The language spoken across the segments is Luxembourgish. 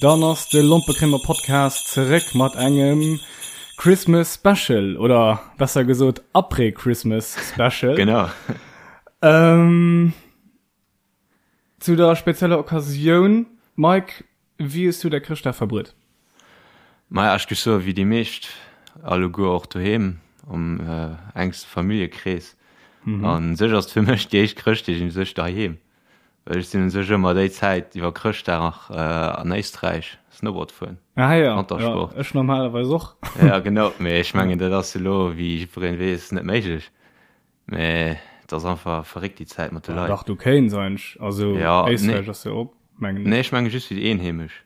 Dann ass de Lompekrimmer Podcast zeréck mat engem Christmas Special oder besser gesot Après Christmas Special. Genau. Ähm, zu der spezieller Occasioun, Mike, wéi hues du däi Chrëschtdag verbruet? Maja, ech géif soen, wéi déi meescht alleguer och doheem am enkste Familljekrees. An sech ass et fir mech déi éischt Chrëschtdeeg un sech doheem. Well ech sinn un sech ëmmer déi Zäit iwwer Chrëschtdag nach an Éisträich Snowboard fueren. Ah ja, Wantersport. Ja, ech normalerweis och. Ja genau, mee ech mengen dat ass elo wéi jiddwereen weess net méiglech. Mee et ass einfach verréckt déi Zäit mat de Leit. Dach du kéins eigentlech, also ja, Éisträich nee. ass jo op mengen ech. Nee ech menge just fir déi Eenheemesch.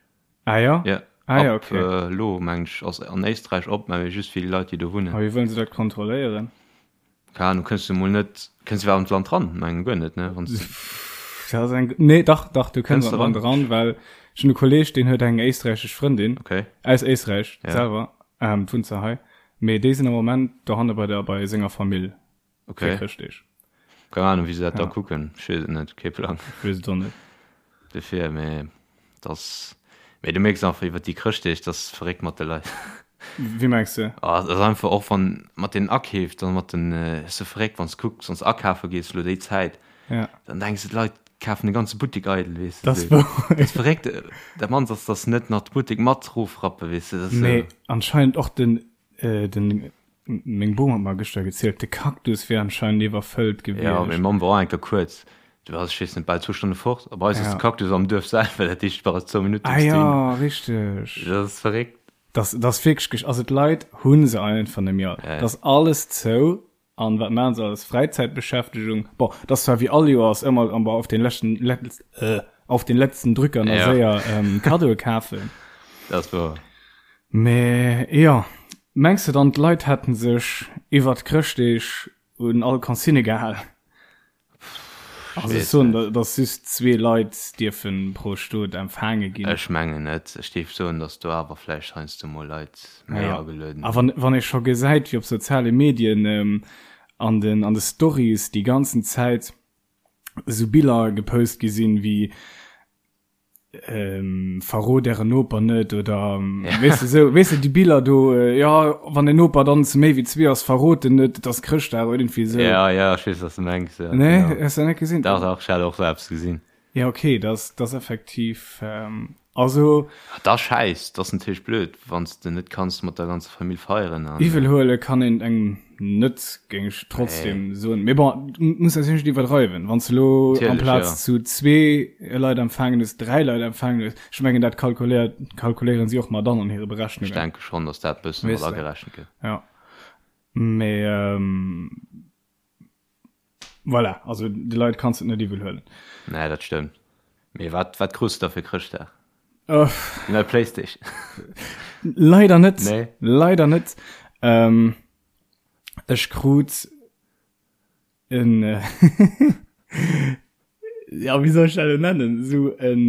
Ah ja? Ja. Ah ja, okay. Ab elo mengen ech ass an Éisträich op, mä just fir déi Leit déi do wunnen. A wéi wëllen se dat kontrolléieren? Keine Ahnung, kënns du mol net, kënns du iwwerhaapt an d'Land ran? Mengen guer net, ne? Wann du. Dat ass eng, nee, dach, dach, du kënns an d'Land ran, well ech hunn e Kolleeg, deen huet eng éisträichesch Frëndin. Okay. Aus Éisträich ja. selwer, ähm, wunnt se hei. Mee déi sinn am Moment dohanne bei der, bei senger Famill. Okay. Fir Chrëschtdeeg. Keng Ahnung, wéi se dat da kucken. Ech weess et net, kee Plang. Ech weess et och net. Dofir, mee dass, mee du mierks einfach iwwer déi Chrëschtdeeg, dass verréckt mat de Leit. Wéi mengs de? Ah, et ass einfach och wann mat den Akeef, dann mat den, ass sou verréckt, wann s kucks, wann s akafe gees elo déi Zäit, Ja. dann denks de, d'Leit kafen de ganze Buttek eidel, weess de. Dat ass wouer. Dat ass verréckt, dat mannst ass, dass se net nach de Buttek mat rofrappen, weess de, dat ass sou. Mee anscheinend och den, den, Meng Bom huet mer gëschter gezielt, de Cactus wier anscheinend iwwerfëllt gewiescht. Jo, meng Mamm war och eng Kéier kuerz, du waars, ech weess net, bal zwou Stonne fort. A bei eis ass de Cactus am Duerf selwer, dat heescht, du bass zwou Minutte bis dohin. Ah jo, richteg. Dat ass verréckt. Dat ass wierklech, also d'Leit hu se einfach net méi all. Dat ass alles zou. An wat maachen se als Fräizäitbeschäftegung? Bon, dat ass zwar wéi all Joers ëmmer auf den leschten, auf den letzten Drücker nach séier Kaddoe kafen. Dat ass wouer. Mee jo, mengs de dann d'Leit hätten sech iwwert Chrëschtdeeg un all Consigne gehal? Also ech soen, datt just zwee Leit dierfen pro Stot empfaange ginn. Ech mengen net. Ech géif soen, datt do awer vläicht heiansdo mol Leit méi agelueden. A wann wann ee scho gesäit, wéi op soziale Medien an den an de Stories déi ganzen Zäit esou Biller gepost gi sinn, wéi ähm, verrot ären Noper net oder ja. weißt du, so, weißt du, die Biller do äh, ja wann den Noper dann zu méi wie zwee ass verrot den net das Chrëschtdag oder irgendwie so ja ja ich weiß, was du mengst ja, nee genau. hast du net gesinn doch doch ich hatte auch selbst gesinn ja okay das das effektiv ähm, also das scheiß das natürlich blöd wann du net kannst mat der ganzer Familie feieren an, Iwwel huele kann een engem net, géing ech trotzdem soen. Mee bon, muss natierlech net iwwerdreiwen. Wann s de elo amplaz zu zwee Leit empfaangen hues, dräi Leit empfaangen hues, ech mengen dat kalkuléiert, kalkuléieren si och mat an an hire Berechnungen. Ech denke schonn, datt dat e bësse mat agerechent gëtt. Jo. Mee voilà, also de Leit kanns de et net iwwel huelen. Nee, dat stëmmt. Mee wat, wat krus de da fir Chrëschtdag? Déi nei Playstation? Leider net. Nee. Leider net. Ähm, ech krut en, ja, wéi soll ech dat elo nennen? Esou en,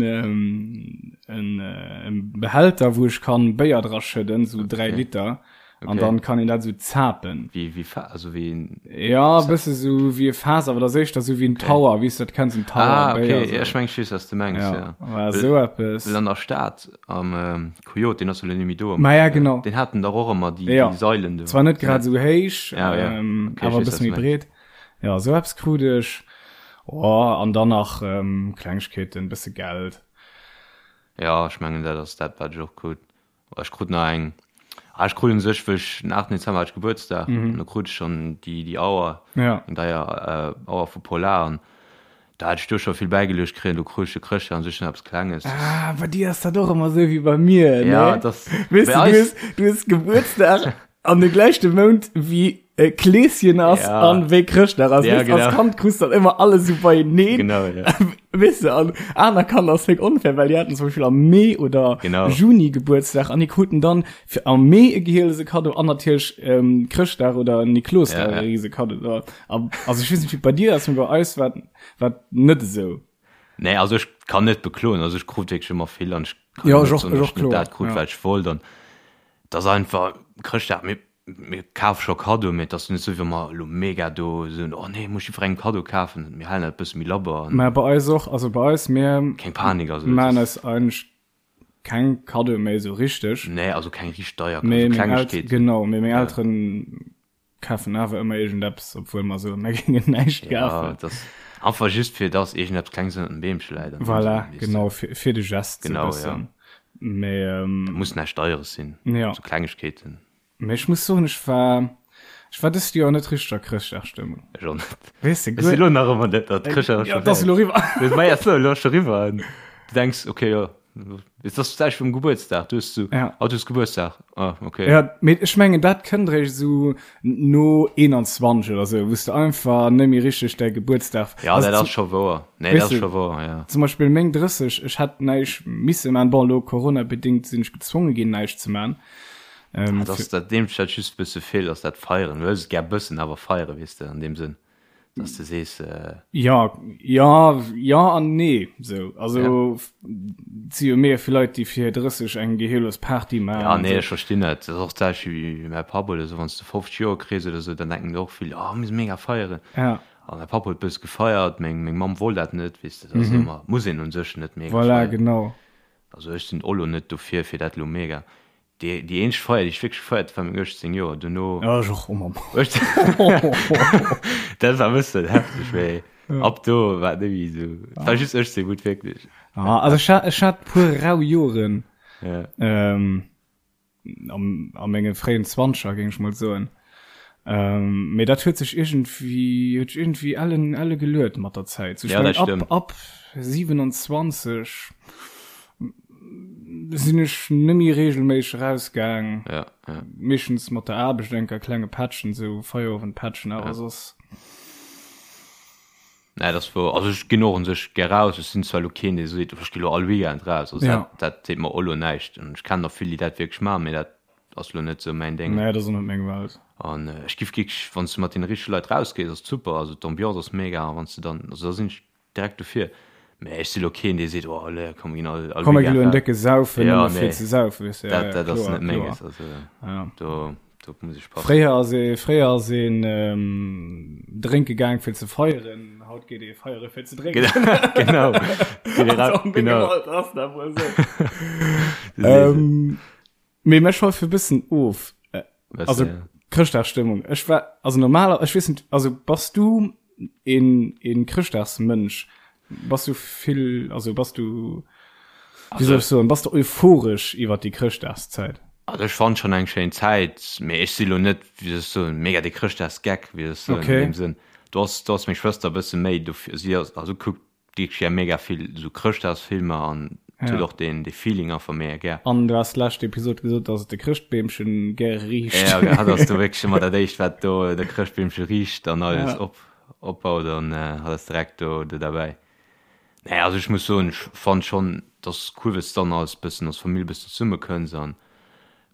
en, en Behälter, wou ech kann Béier dra schëdden, esou 3 Liter. An dann kann een dat esou zapen. Wéi, wéi Fa-, also wéi en. Ja, e bësse sou wéi e Faass, awer dat ass éischter sou wéi en Tower, wéi s du dat kenns, en Tower Ah, okay, Béier, ja, ech meng, ech weess, wat s de mengs, ja. Ja, war esou eppes. Well an der Stad, am Coyote, deen ass jo elo net méi do. Ma ja, genau. Deen haten dach och ëmmer déi, déi Sailen do. Zwar net grad esou héich, Ja, ja. Okay, awer e bësse méi breet. Ja, esou eppes krut ech. Oh, an dann nach Klengegkeeten, e bësse Geld. Ja, ech mengen, dat ass dat, wat ech och krut. Ech krut nach eng, ah ech krut un sech, wëll ech den 8 Dezember hat ech Gebuertsdag, an do krut ech schonn déi déi Auer, eng deier Auer vu Polar, an da hat ech do scho vill bäigeluecht kréien, do krut ech de Chrëschtdag un sech nach eppes Klenges. Ah, bei dir ass dat och ëmmer esou wéi bei mir, ne? Ja, dat Weess de, du hues, du hues Gebuertsdag an de gläichte Mount wéi äh, Kleeschen ass Ja. an wéi Chrëschtdag ass. Ja, Weess, als genau. Kand krus dann ëmmer alles esou beieneen. Genau, ja. Weess de, an aner Kanner ass wéi onfair, well déi haten zum Beispill am Mee oder Genau. Juni Gebuertsdag an déi kruten dann fir am Mee e gehielese Kaddo an natierlech ähm, Chrëschtdag oder Niklosdag Ja, ja. e riese Kaddo. So, a- Also ech weess net, wéi et bei dir ass, mee bei eis war war net esou. Nee, also ech kann net bekloen, also ech krut wierklech ëmmer vill an ech kann Ja, net ech och, soen, ech datt och, ech net kloer, dat krut, ja. wat ech wollt an et ass einfach Chrëschtdag, mir mir kafe scho Kaddoe, mee et ass net esou, wéi wa mer elo mega do soen, oh nee, muss jiddwerengem Kaddo kafen. Mir halen dat e bësse méi labber an. Mä bei eis och, also bei eis, mir Keng Panik, also maachen eis eigentlech. keng Kaddoe méi esou richteg. Nee, also keng richteg deier, also Klengegkeeten. Genau, mee meng Elteren kafen awer ëmmer iergendeppes, obwuel mer soen, mer géingen näischt kafen. Ja, dat ass einfach just fir dass iergendeppes Klenges ënnert dem Beemche läit. Voilà, genau, fir, fir de Gest genau, sou bëssen. Ja. Mee, ähm, Dat muss näischt Deieres sinn. Ja. Sou Klengegkeeten. Mee ech muss soen, ech war, ech war dëst Joer net richteg a Chrëschtdagstëmmung. Ech och net. Weess de, Ech si lo nach ëmmer net, datt Chrëschtdag ass scho Ja, dat ass elo eriwwer. Ma ja, elo ass scho eriwwer. An du denks, okay, jo, Et ass d'selwecht wéi um Gebuertsdag. Du hues so, ja. oh, du hues Gebuertsdag. Ah, okay. Ja, mee ech mengen, dat kënnt eréischt esou no 21 oder sou, wou s de einfach net méi richteg däi Gebuertsdag. Ja, also, dat ass scho wouer. Nee, dat ass scho wouer, ja. Zum Beispill meng 30, ech hätt näischt misse man. Bon, elo Corona-bedingt sinn ech gezwonge ginn, näischt ze man. Ähm, ah, das, dat deem dat just bësse feelt, ass dat Feieren. Du hues et gär bëssen, awer feiere, weess de, an deem Sënn. Dass de sees. Äh ja, ja, ja an nee. So, also, ja. si jo mega vill Leit, déi fir 30 eng gehirlos Party maachen. Ja, nee, ech verstinn dat. Dat ass och d'selwecht wéi mäi Papp oder sou. Wann s de 50 Joer kriss oder sou, dann denken der och vill, oh, mir musse mega feieren. Ja. A mäi Papp huet bësse gefeiert, meng, meng Mamm wollt dat net, weess de. Dat ass mhm. ëmmer, muss een un sech net mega voilà, feieren. genau. Also ech sinn och lo net dofir, fir dat lo mega. Déi, déi eenzeg Feier, déi ech wierklech gefeiert hunn, war meng 18 Joer. Dono. Ja, ech och, oh Mamm. Dat war e bëssen hefteg, mee ab do war et net méi esou. Et war just 18, wou et wierklech. Ah, also ech hat, ech hat puer rau Joren. Ja. Ähm, am, a menge fréien Zwanzeger, géing ech mol soen. Ähm, mee dat huet sech iergendwéi, huet sech iergendwéi ellen, elle geluet mat der Zäit. So, ech Ja, meng, dat ab, stëmmt. ab 27 sinn ech nëmmi regelméisseg rausgaang. Ja, ja. Meeschtens mat der Aarbecht enker klenge Patchen, sou Feierowendpatchen, awer Ja. soss. Nee, dat ass wouer. Also ech ginn och un sech gär raus. Ech sinn zwar elo keen, dee seet, ech gi lo all Weekend raus. Also Ja. dat, dat seet mer och elo näischt. An ech kennen och vill, déi dat wierklech maachen, mee dat ass lo net sou mäin Déng. Nee, dat ass och net meng Welt. An ech giff wierklech, wann s de mat deene richtege Leit rausgees, ass et super. Also d'Ambiance ass mega a wann s de dann, also da sinn ech direkt dofir. Mä ech si lo keen, dee seet, oh allez, komm mir ginn all, all Komm mir Weekend gi lo en raus. décke Saufen, Ja, nëmme fir nee, ze saufen, weess de. Ja, dat, ja, dat ass kloer, net kloer. menges. Also Ja. do, do muss ech passen. Fréier ass ee, fréier ass een drénke gaang fir ze feieren, haut geet ee feiere fir ze drénken. Genau, geet ee Also raus, an dengem genau. Alter ass dat wuel esou. Du sees et. Ähm, Mee mir schweife e bëssen of. Bëssen, Also ja. Chrëschtdagsstëmmung. Ech war, also normaler, ech weess net, also bass du een, een Chrëschtdagsmënsch? Bass du vill, also bass du, wéi soll ech soen, bass du euphoresch iwwer déi Chrëschtdagszäit? Also ech fannen schon eng schéin Zäit, mee ech si lo net, wéi soll ech soen, mega de Chrëschtdagsgeck, wéi soll ech soen, an Okay. deem Sënn. Do ass, do ass meng Schwëster e bësse méi dofir, si ass, also kuckt Wierklech gär mega vill sou Chrëschtdagsfilmer an huet och deen dee Feeling einfach mega gär. An du has d'lescht Episod gesot, dass et de Chrëschtbeemchen gär riicht. Ja, hatt ass do wierklech ëmmer dat éischt wat do de Chrëschtbeemche riicht an alles op opbaut an hatt ass direkt do do derbäi. Nee also ech muss soen ech fannt schonn dass cool wëss dann als bëssen als Famill bëssen zesumme kënns an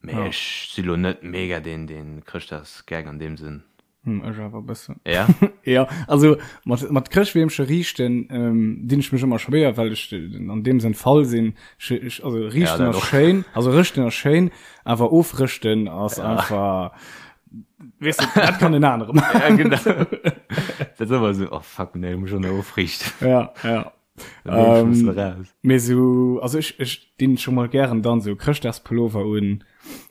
mee ech si lo net mega deen deen Chrëschtdagsgeck an deem Sënn. Hm, ech awer e bëssen. Ja? Ja, also mat, mat Chrëschtbeemche riichten ähm, dinn ech mech ëmmer schwéier, well ech an deem Sënn faul sinn. Ech, ech, also Ja, riichten dat ass och. schéin, also rëschten ass schéin, awer ofrëschten ass Ja. einfach, weess de, dat kann en anere maachen. Ja, genau. Dat ass ëmmer esou, oh fuck, nee, muss ech och nach ofriichten. Ja, ja. Ähm, mee sou, also ech, ech dinn scho mol gären dann sou Chrëschtdagspullover un.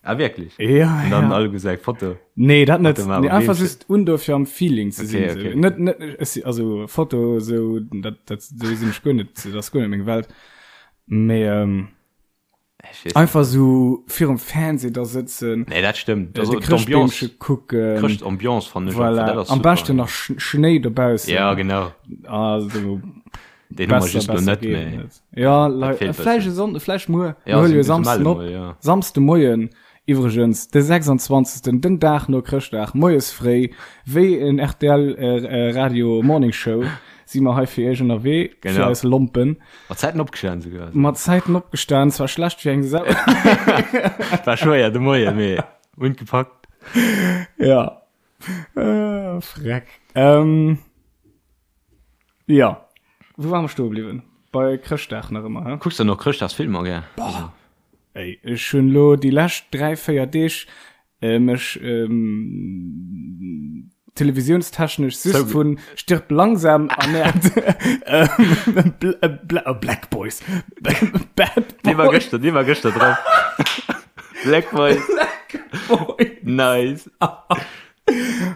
Ah wierklech? Ja, Und dann ja. alle gesag Foto. Nee, dat net. Nee, einfach just un dofir am Feeling ze okay, sinn. Okay. Net, net, ech, also Foto sou, dat, dat, sou sinn ech guer net, dat ass guer net meng Welt. Mee, ähm, Einfach sou virum Fernseh da sëtzen. Nee, dat stëmmt. Äh, de Chrëschtbeemche kucken. Chrëschtambiance fannen ech voilà. dat ass Am beschten nach Schnéi dobaussen. Ja, genau. Also, Den hu mer just lo net méi. Ja, vläicht e Sonnden, vläicht muer. Ja, mir huele jo Samsden op. Ja. Samsde Moien, iwwregens, de 26., den Dag no Chrëschtdag, moies fréi, wéi en RTL äh, Radio Morning Show, si mer hei fir iech ënnerwee, genau. fir eis Lompen. Mat Zäiten opgestan souguer. Mat Zäiten opgestan, zwar schlecht wéi eng Sau. War schwéier de Moien, mee hunn gepackt. Ja. Äh, freck. Ähm, ja. Wou ware mer stoe bliwwen? Bei Chrëschtdag nach ëmmer, hä? Kucks de nach Chrëschtdagsfilmer gär? Boah. Ey, ech hunn lo déi lescht 3, 4 Deeg äh, mech ähm, televisiounstechnesch just vun Stirb langsam ernährt. Ähm, Bl äh, Bla äh, Black Boys. Bad Boys. Dee war gëschter, dee war gëschter drop. Black Boys. Black Boys. Nice.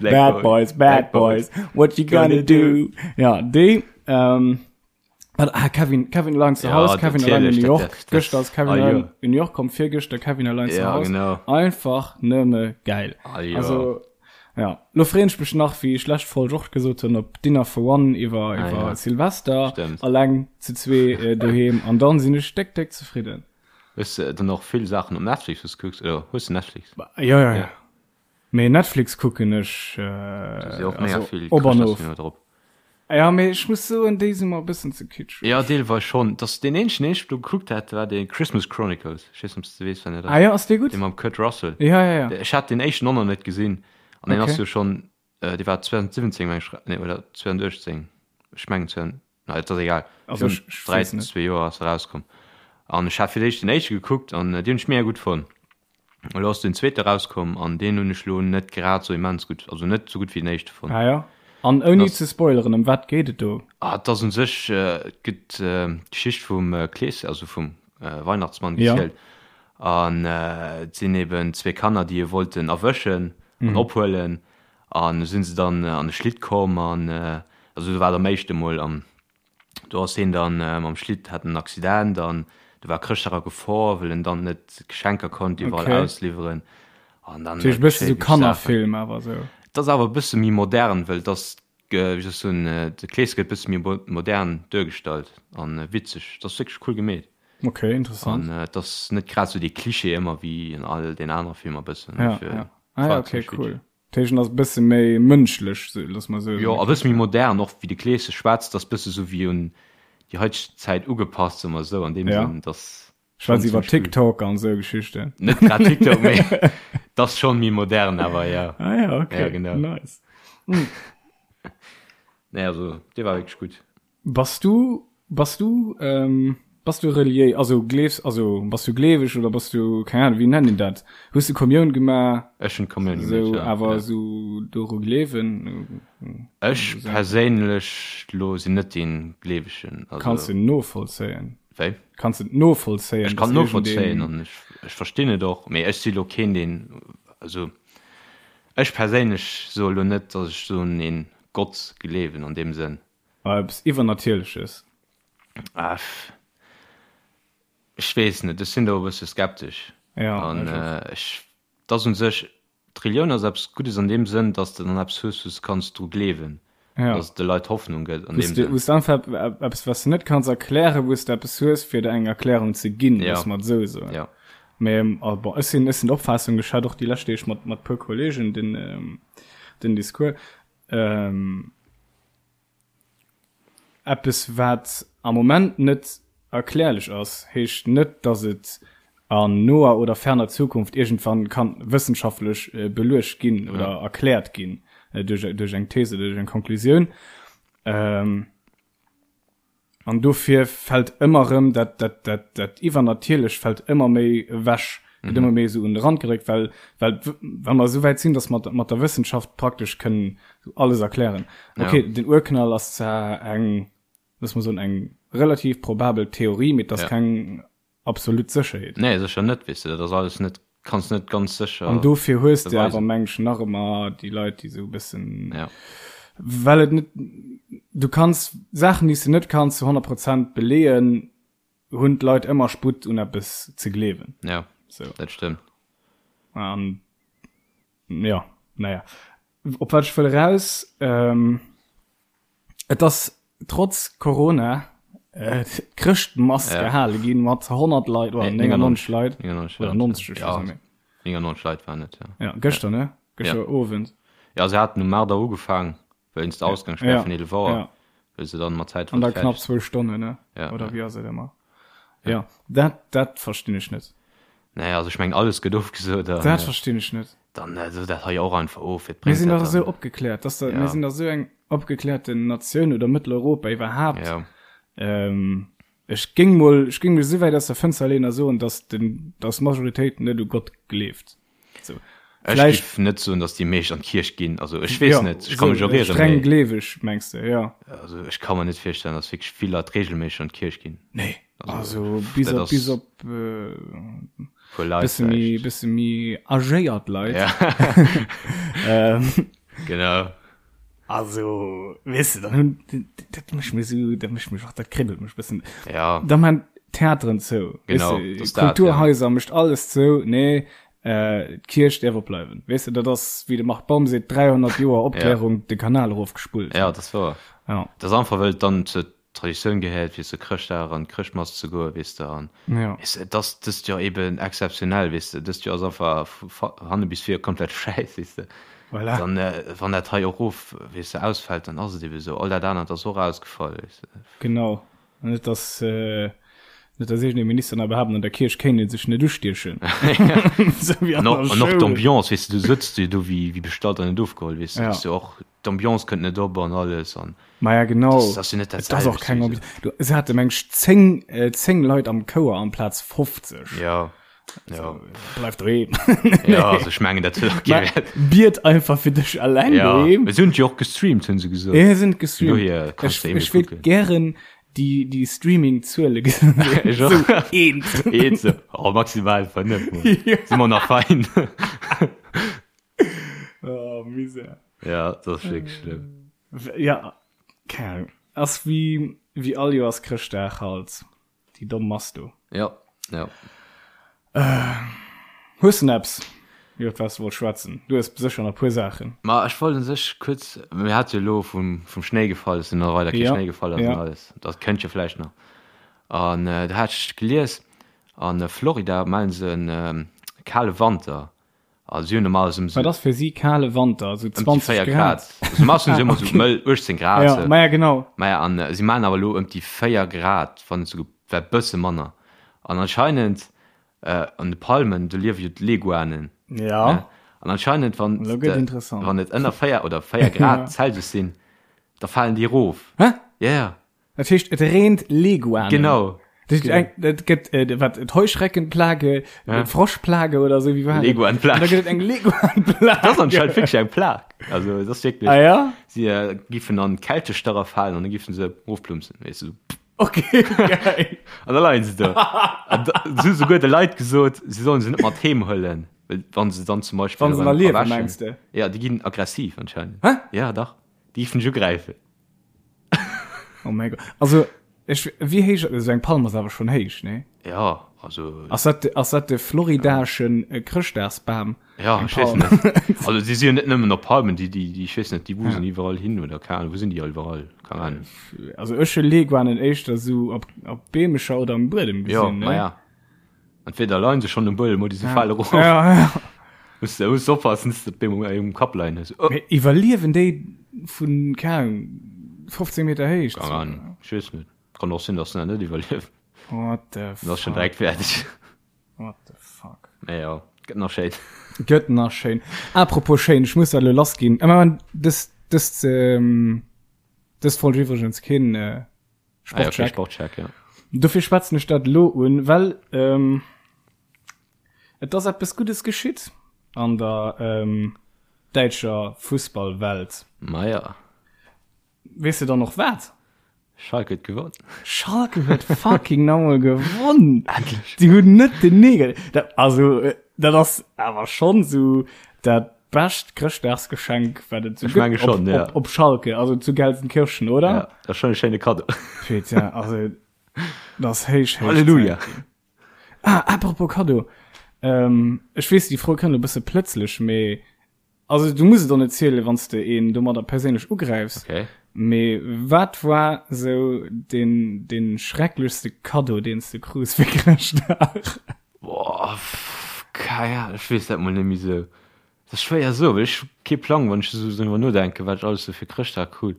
Black Bad Boys, Bad Boys. What you gonna do? Ja, déi. Ähm, ah, Kevin, Kevin allein zu Hause, Kevin allein in New York. Gëschter ass Kevin ah, allein in New York komm, virgëschter Kevin allein zu Hause. Genau. Einfach nëmme geil. Ah, jo. Also, ja. Lo freen ech mech nach, wéi ech lescht Folg och gesot hunn, op Dinner for One iwwer, ah, iwwer ja. Silvester. Stimmt. Alleng zu zwee äh, doheem. An dann sinn ech déck, déck zefridden. Hues de dann och vill Saachen op Netflix, wou s kucks? Oder hues de Netflix? Ja, ja, ja. Mee Netflix kucken ech also op an of. Ja mee ech muss soen déi si mer e bëssen ze kitscheg. Ja deelweis schonn. Dass deen eenzegen deen ech do gekuckt hat war dee Christmas Chronicles. Ech weess net ob s de weess wat dat ass. Ah jo ass dee gutt? Dee mam Kurt Russell. Ja ja ja. Ech hat deen éischten och nach net gesinn an deen ass jo schonn dee war 2017 meng ech nee oder 2018 ech mengen 20 na et ass egal. Also ech ech weess net. 3 zwee Joer ass e rauskomm an ech hat fir d'éischt den éischte gekuckt an deen hunn ech mega gutt fonnt. Elo ass den zweete rauskomm an deen hunn ech lo net grad sou immens gutt, also net sou gutt wéi den éischte fonnt. Ah jo. An ouni ze spoileren, ëm wat geet et do? Ah, et ass un sech, et gëtt d'Geschicht vum Kleeschen, also vum Weihnachtsmann gezielt. An et sinn eben zwee Kanner, déi e wollten erwëschen an ophuelen. An du sinn se dann an de Schlitt komm an, also do war et am éischte mol an Do ass heen dann mam Schlitt, hat en Accident an do war Chrëschtdag a Gefor, well en dann net d'Geschenker konnt iwwerall okay. ausliwweren. An dann e bësse sou Kannerfilm awer sou. Et ass awer e bësse méi modern, well et ass, wéi soll ech soen, de Kleeschen gëtt e bësse méi modern duergestallt an witzeg. Et ass wierklech cool gemeet. Okay, interessant. An et ass net grad sou dee Klischee ëmmer wéi an all den anere Filmer bëssen. Ja, ja. Ah, ja, okay, cool. D'Héijen ass e bësse méi mënschlech, looss mer soen. Jo, a bësse méi modern, och wéi de Kleesche schwätzt, ass bësse sou wéi un déi haiteg Zäit ugepasst, soe mer esou, an deem Sënn, dass. Schwätzt iwwer TikTok an esou Geschichten. Net grad TikTok, mee 't ass schonn méi modern awer, jo. Ah ja, okay. Ja, genau. Nice. Nee, also, dee war wierklech gutt. Bass du, bass du, ähm, bass du reliéis, also gleefs, also bass du gleeweg oder bass du, keng Ahnung, wéi nennt een dat? Hues du Kommioun gemaach? Ech hunn d'Kommioun gemaach, ja. Sou, awer sou doru gleewen? Ech perséinlech lo sinn net dee Gleewegen, also. Kanns de novollzéien? Wéi? Kanns de et novollzéien? Ech kann novollzéien an ech, ech verstinn et och, mee ech si lo keen deen, also ech perséinlech soe lo net, datt ech sou un een Gott gleewen an deem Sënn. Eppes Iwwernatierleches? Ah, ech weess net, ech sinn do e bësse skeptesch. Ja, An ech och. ech, et ass un sech, d'Relioun ass eppes Guddes an deem Sënn, datt s de dann eppes hues, wou s de kanns dru gleewen, Ja. datt et de Leit Hoffnung gëtt an Wou s deem de, Sënn. wou s de einfach eppes, wat s de net kanns erklären, wou s de eppes hues, fir der eng Erklärung ze ginn, Ja. loosse mer et esou soen. Ja. Mee, ah, bon, ech sinn, ech sinn der Opfaassung, ech hat och déi lescht Deeg mat, mat puer Kollegen den, den Discours, ähm, Eppes wat am Moment net erklärlech ass, heescht net, datt et an noer oder ferner Zukunft iergendwann kann wëssenschaftlech beluecht ginn oder erkläert ginn duerch eng These oder duerch eng Konklusioun. An dofir fält ëmmer erëm dat, dat, dat, dat Iwwernatierlecht fält ëmmer méi ewech, gëtt ëmmer méi esou un de Rand gedréckt, well, well, well mer esou wäit sinn, datt mer mat der Wëssenschaft praktesch kënnen alles erklären. Okay, den Urknall ass zwar eng, looss mer soen, eng relativ probabel Theorie, mee et ass keng absolut Sécherheet. Nee, sécher net, weess de, dat ass alles net, kanns net ganz sécher An dofir hues de awer, meng ech, nach ëmmer déi Leit, déi esou e bëssen, ja. well et net, du kanns Saachen, déi s de net kanns zu 100 Prozent beleeën, hunn d'Leit ëmmer Sputt un eppes ze gleewen. Ja, sou. Dat stëmmt. An ja, naja. Op wat ech wëll eraus, ähm, Et ass trotz Corona d'Chrëschtmass ja. gehale ginn mat 100 Leit oder 99 Leit 99 oder 90 ja. 99 Leit waren et ja. Ja, gëschter ne gëschter ja. Owend. Ja se haten um 8 Auer ugefaang wéinst der Ausgangssperr ja. vun 11 Auer ja. wëll se dann mat Zäit an da knapp zwou Stonnen ne ja, oder ja. wéi ass et ëmmer ja dat dat verstinn ech net. Nee, also ech meng alles gëtt ofgesot. Dat verstinn ech net. Dann sot dat hei och einfach of. Wat bréngt Mir sinn dach esou opgekläert, dass der, mir sinn dach esou eng opgeklärten Natioun oder Mëtteleuropa iwwerhaapt. Ja. Ähm, ech géing mol, ech géing mech esou wäit aus der Fënster leeën a soen, dass den, dass d'Majoritéit net u Gott gleeft. Sou. Ech géif net soen, datt déi meescht an d'Kierch ginn. Also ech weess net, ech ka mech och ieren. Streng gleeweg mengs de, jo. Also ech ka mer net virstellen, datt wierklech vill Leit reegelméisseg an d'Kierch ginn. Nee, also bis op, bis op puer Leit bësse méi, bësse méi agéiert Leit. Ja. Genau. Also, weess de, dann hunn, dat mécht mech esou, dat mécht mech och, dat kribbelt mech bëssen. Ja. Da man Theateren zou. Genau, weess de, Kulturhaiser ja. mécht alles zou, nee, äh, d'Kierch däerf opbleiwen. Weess de, dat ass, wéi de Marc Baum seet, 300 Joer Opklärung, ja. de Kanal erofgespullt. Ja, dat ass wouer. Ja. Dat ass einfach, well et dann zur Traditioun gehéiert, fir zu Chrëschtdag an d'Chrëschtmass ze goen, weess de, an ja. weess de, et ass dëst Joer eben exzeptionell, weess de, dëst Joer ass einfach vu hanne bis vir komplett schäiss, weess de. Voilà. Dann, wann dat hei och of, weess de, ausfält, dann ass et eben esou. All dat anert ass och ausgefall, weess de. Genau. An net, dass, net, dass iergendee Minister nach behaapten, an der Kierch kéint ee sech net ustiechen. Esou wéi an der Schoul. An och d'Ambiance, weess de, du sëtz jo do wéi, wéi bestallt an net ofgeholl, weess de, ass jo och, d'Ambiance kënnt net op an alles an. Maja, genau. Das ass jo net dat Et ass och keng Ambiance. Du, se hate meng ech 10, 10 Leit am Chouer amplaz 50. Ja. Ja. Bleif doheem. Ja, also ech mengen, dat huet och kee Wäert. Biet einfach fir dech alleng ja. doheem. Se hunn jo och gestreamt, hunn se gesot. Ja, se sind gestreamt. Dohier kannst du eben Ech wéilt gären déi, déi Streaming-Zuele gesinn. Ech och. So eent. Eent so. Oh, maximal 5. Ja. Si mer nach fein. Oh, Misär. Ja, dat ass wierklech schlëmm. Ja, keng Ahnung. Ass wéi, wéi all Joers Chrëschtdag halt. Déi domm Mass do. Ja, ja. Hues de eppes, iwwert wat s de wollt schwätzen? Du hues sécher nach e puer Saachen. Ma ech wollt un sech kuerz, mir hate jo elo vum, vum Schnéi gefall, dass nach weider kee Ja, Schnéi gefall ass ja. an alles. Dat kënnt jo vläicht nach. An do hat ech gelies, a Florida mellen se e kale Wanter. Also si hunn normalerweis ëm Wat ass fir si kale Wanter? Esou ëm déi 20 4 Grad? Grad. Also normalerweis hunn si ëmmer esou mëll 18 Grad. Ja, ma ja genau. Maja, an si maachen awer elo ëm déi 4 Grad, wann net souguer e bësse manner. An anscheinend an de Palmen, do liewe jo d'Leguanen. Ja. Ne? An anscheinend, wann Elo gëtt interessant. wann et ënner 4 oder 4 Grad Celsius sinn, da falen déi erof. Hä? Ja, ja. Dat heescht, et reent Leguanen. Genau. Dat heescht, eng, dat gëtt, äh, wat, d'Heuschreckenplage, ja. d'Froschplage oder sou, wéi war dat? Leguanplage. Da gëtt et eng Leguanplage. Dat ass anscheinend wirklich eng Plag. Also, dat ass wirklich. Ah ja? Si äh, giffen an Kältestarre falen an dann giffen se ofplumpsen, weess du. Okay, geil. An da leien se do. An da, se hu souguer de Leit gesot, se sollen se net mat heem huelen, well wann se dann zum Beispill Wann se nach erëm liewen, erwächen. mengs de? Ja, déi ginn aggressiv anscheinend. Hä? Ja, dach. Déi giffen dech ugräifen. Oh mein Gott. Also, ech, wéi héich, also eng Palm ass awer schonn héich, nee? Ja, also. Ass dat, ass dat de floridaschen äh, Chrëschtdagsbam? Ja, Eng ech weess Palm. net. Also, si si jo net nëmmen op Palmen, déi, déi, déi, ech weess net, déi wusen iwwerall hin oder keine Ahnung, wou sinn déi all iwwerall? Keine Ahnung. Also ech hu Leguanen éischter sou op, op Beemecher oder am Buedem Ja, gesinn, ne? ma ja. Entweder leien se schonn um Buedem oder se fale erof. Ja, ja. Muss de muss oppassen, dass de d'Beem um, um Kapp leien hues. Oh. Mee iwwerliewen déi vun, keng Ahnung, 15 Meter Héicht? Keine Ahnung, ech weess net. Kann och sinn, dass se dat net iwwerliewen. What the Dann ass schon fuck? direkt fäerdeg. What the fuck? Mee ja, gëtt nach schéin. Gëtt nach schéin. Apropos schéin, ech muss dat elo lass ginn. Ëmmer dës, dës, ähm, dës Folg iwwregens keen, äh, Ah, ja, okay, Sportcheck. Sportcheck, ja. Dofir schwätzen ech dat elo un, well ähm, et ass eppes Guddes geschitt an der ähm, däitscher Fussballwelt. Maja. Weess de dann och wat? Schalke huet gewonn. Schalke huet fucking nochmol gewonn. Endlech. Die hunn net den Negel. Dat, also, äh, dat ass awer schon so dat bescht Chrëschtdagsgeschenk, wat et so Ech menge gëtt op, schon, ja. op, op Schalke, also zu Gelsenkirchen, oder? Ja, dat ass schon e schéine Kaddo. Putain, also, dat ass héich, héich Halleluja. Zäit. Ah, apropos Kaddo. Ähm, ech weess, déi Fro kënnt e bësse plëtzlech, mee Also du muss et och net zielen, wann s de een domadder perséinlech ugräifs. Okay. Mee wat war sou deen, deen schrecklechste Kaddo, deen s de krus fir Chrëschtdag? Boah, kei Ahnung, ech weess dat mol net méi sou. Dat ass schwéier soen, well ech hu kee Plang, wann ech esou driwwer nodenken, wat ech alles sou fir Chrëschtdag krut.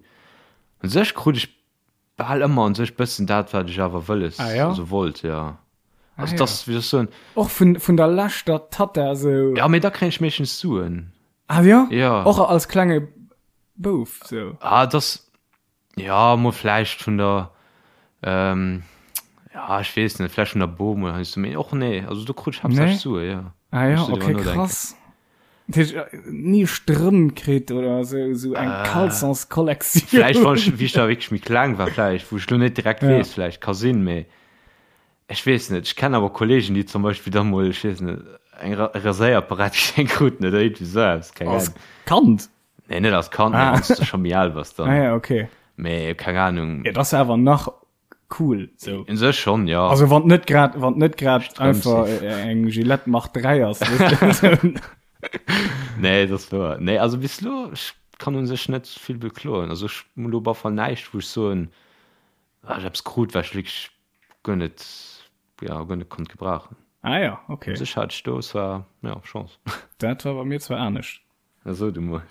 Un sech krut ech Bal ëmmer un sech bëssen dat wat ech awer wëlles, Ah, ja? also wollt, ja. Also Ah, das, ja. wéi soll ech soen, Och vun, vun der leschter Tatta sou. ja mee da kréien ech meeschtens Suen. Ah ja? Ja. Och als klenge Bouf sou. Ah das, ja mol vläicht vun der, ähm, ja ech weess net, vläicht vun der Bom oder heiansdo, mee och nee, also do krut ech haaptsächlech Nee? Sue, ja. Ah Wann ja, ech sou driwwer okay, nodenken. krass. Dat heescht, ni Strëmp kritt oder sou, sou eng Caleçonskollektioun. Vläicht wann ech, wéi ech da wierklech méi kleng war, vläicht, wou ech lo net direkt weess, vläicht ka sinn, mee ech weess net. Ech kennen awer Kollegen, déi zum Beispill da mol, ech weess net, eng Raséierapparat geschenkt kruten oder iergendwéi sou eppes, keng Ahnung. Als Kand? Nee, net als Kand, mee wann s de scho méi al bass dann. Ah ja, okay. Mee keng Ahnung. Jo, dat ass awer nach cool sou. Un sech schonn, jo. Also wann net grad wann net grad einfach eng Gillette Mach 3 ass. Nee, dat ass wouer. Nee, also bis elo, ech kann un sech net vill bekloen. Also ech hunn elo op alle Fall näischt, wou ech soen, ah, ech eppes krut, wat ech wierklech guer net, ja, guer net konnt gebrauchen. Ah ja, okay. Un sech hat ech do zwar, ja, Chance. Dat war bei mir zwar anescht. Na so du mol.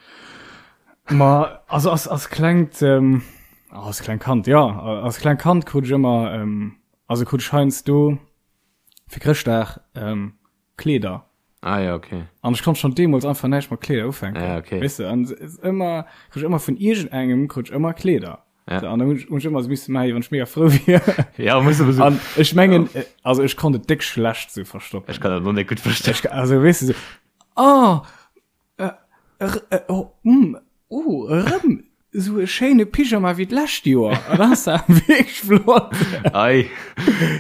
Ma also als, als klengt ähm, als kleng Kand ja als kleng Kand krut ech ëmmer ähm, also krut ech heiansdo fir Chrëschtdag ähm, Kleeder. Ah ja, okay. An ech konnt schon deemools einfach näischt mat Kleeder ufänken. Ja, okay. Weißt du, an ëmmer krut ech ëmmer vun iergendengem krut ech ëmmer Kleeder. Ja. So, an dann hunn ech, hunn ech ëmmer so misse maachen, wann ech mega frou wier. Ja, muss aber so. An ech mengen, ja. also ech konnt et déck schlecht so verstoppen. Ech kann dat noch net gutt verstoppen. Ech, also weißt du, so, oh, äh, äh, oh, mm, oh, erëm so e schéine Pyjama wéi d'lescht Joer. An das war wierklech flott. Ei.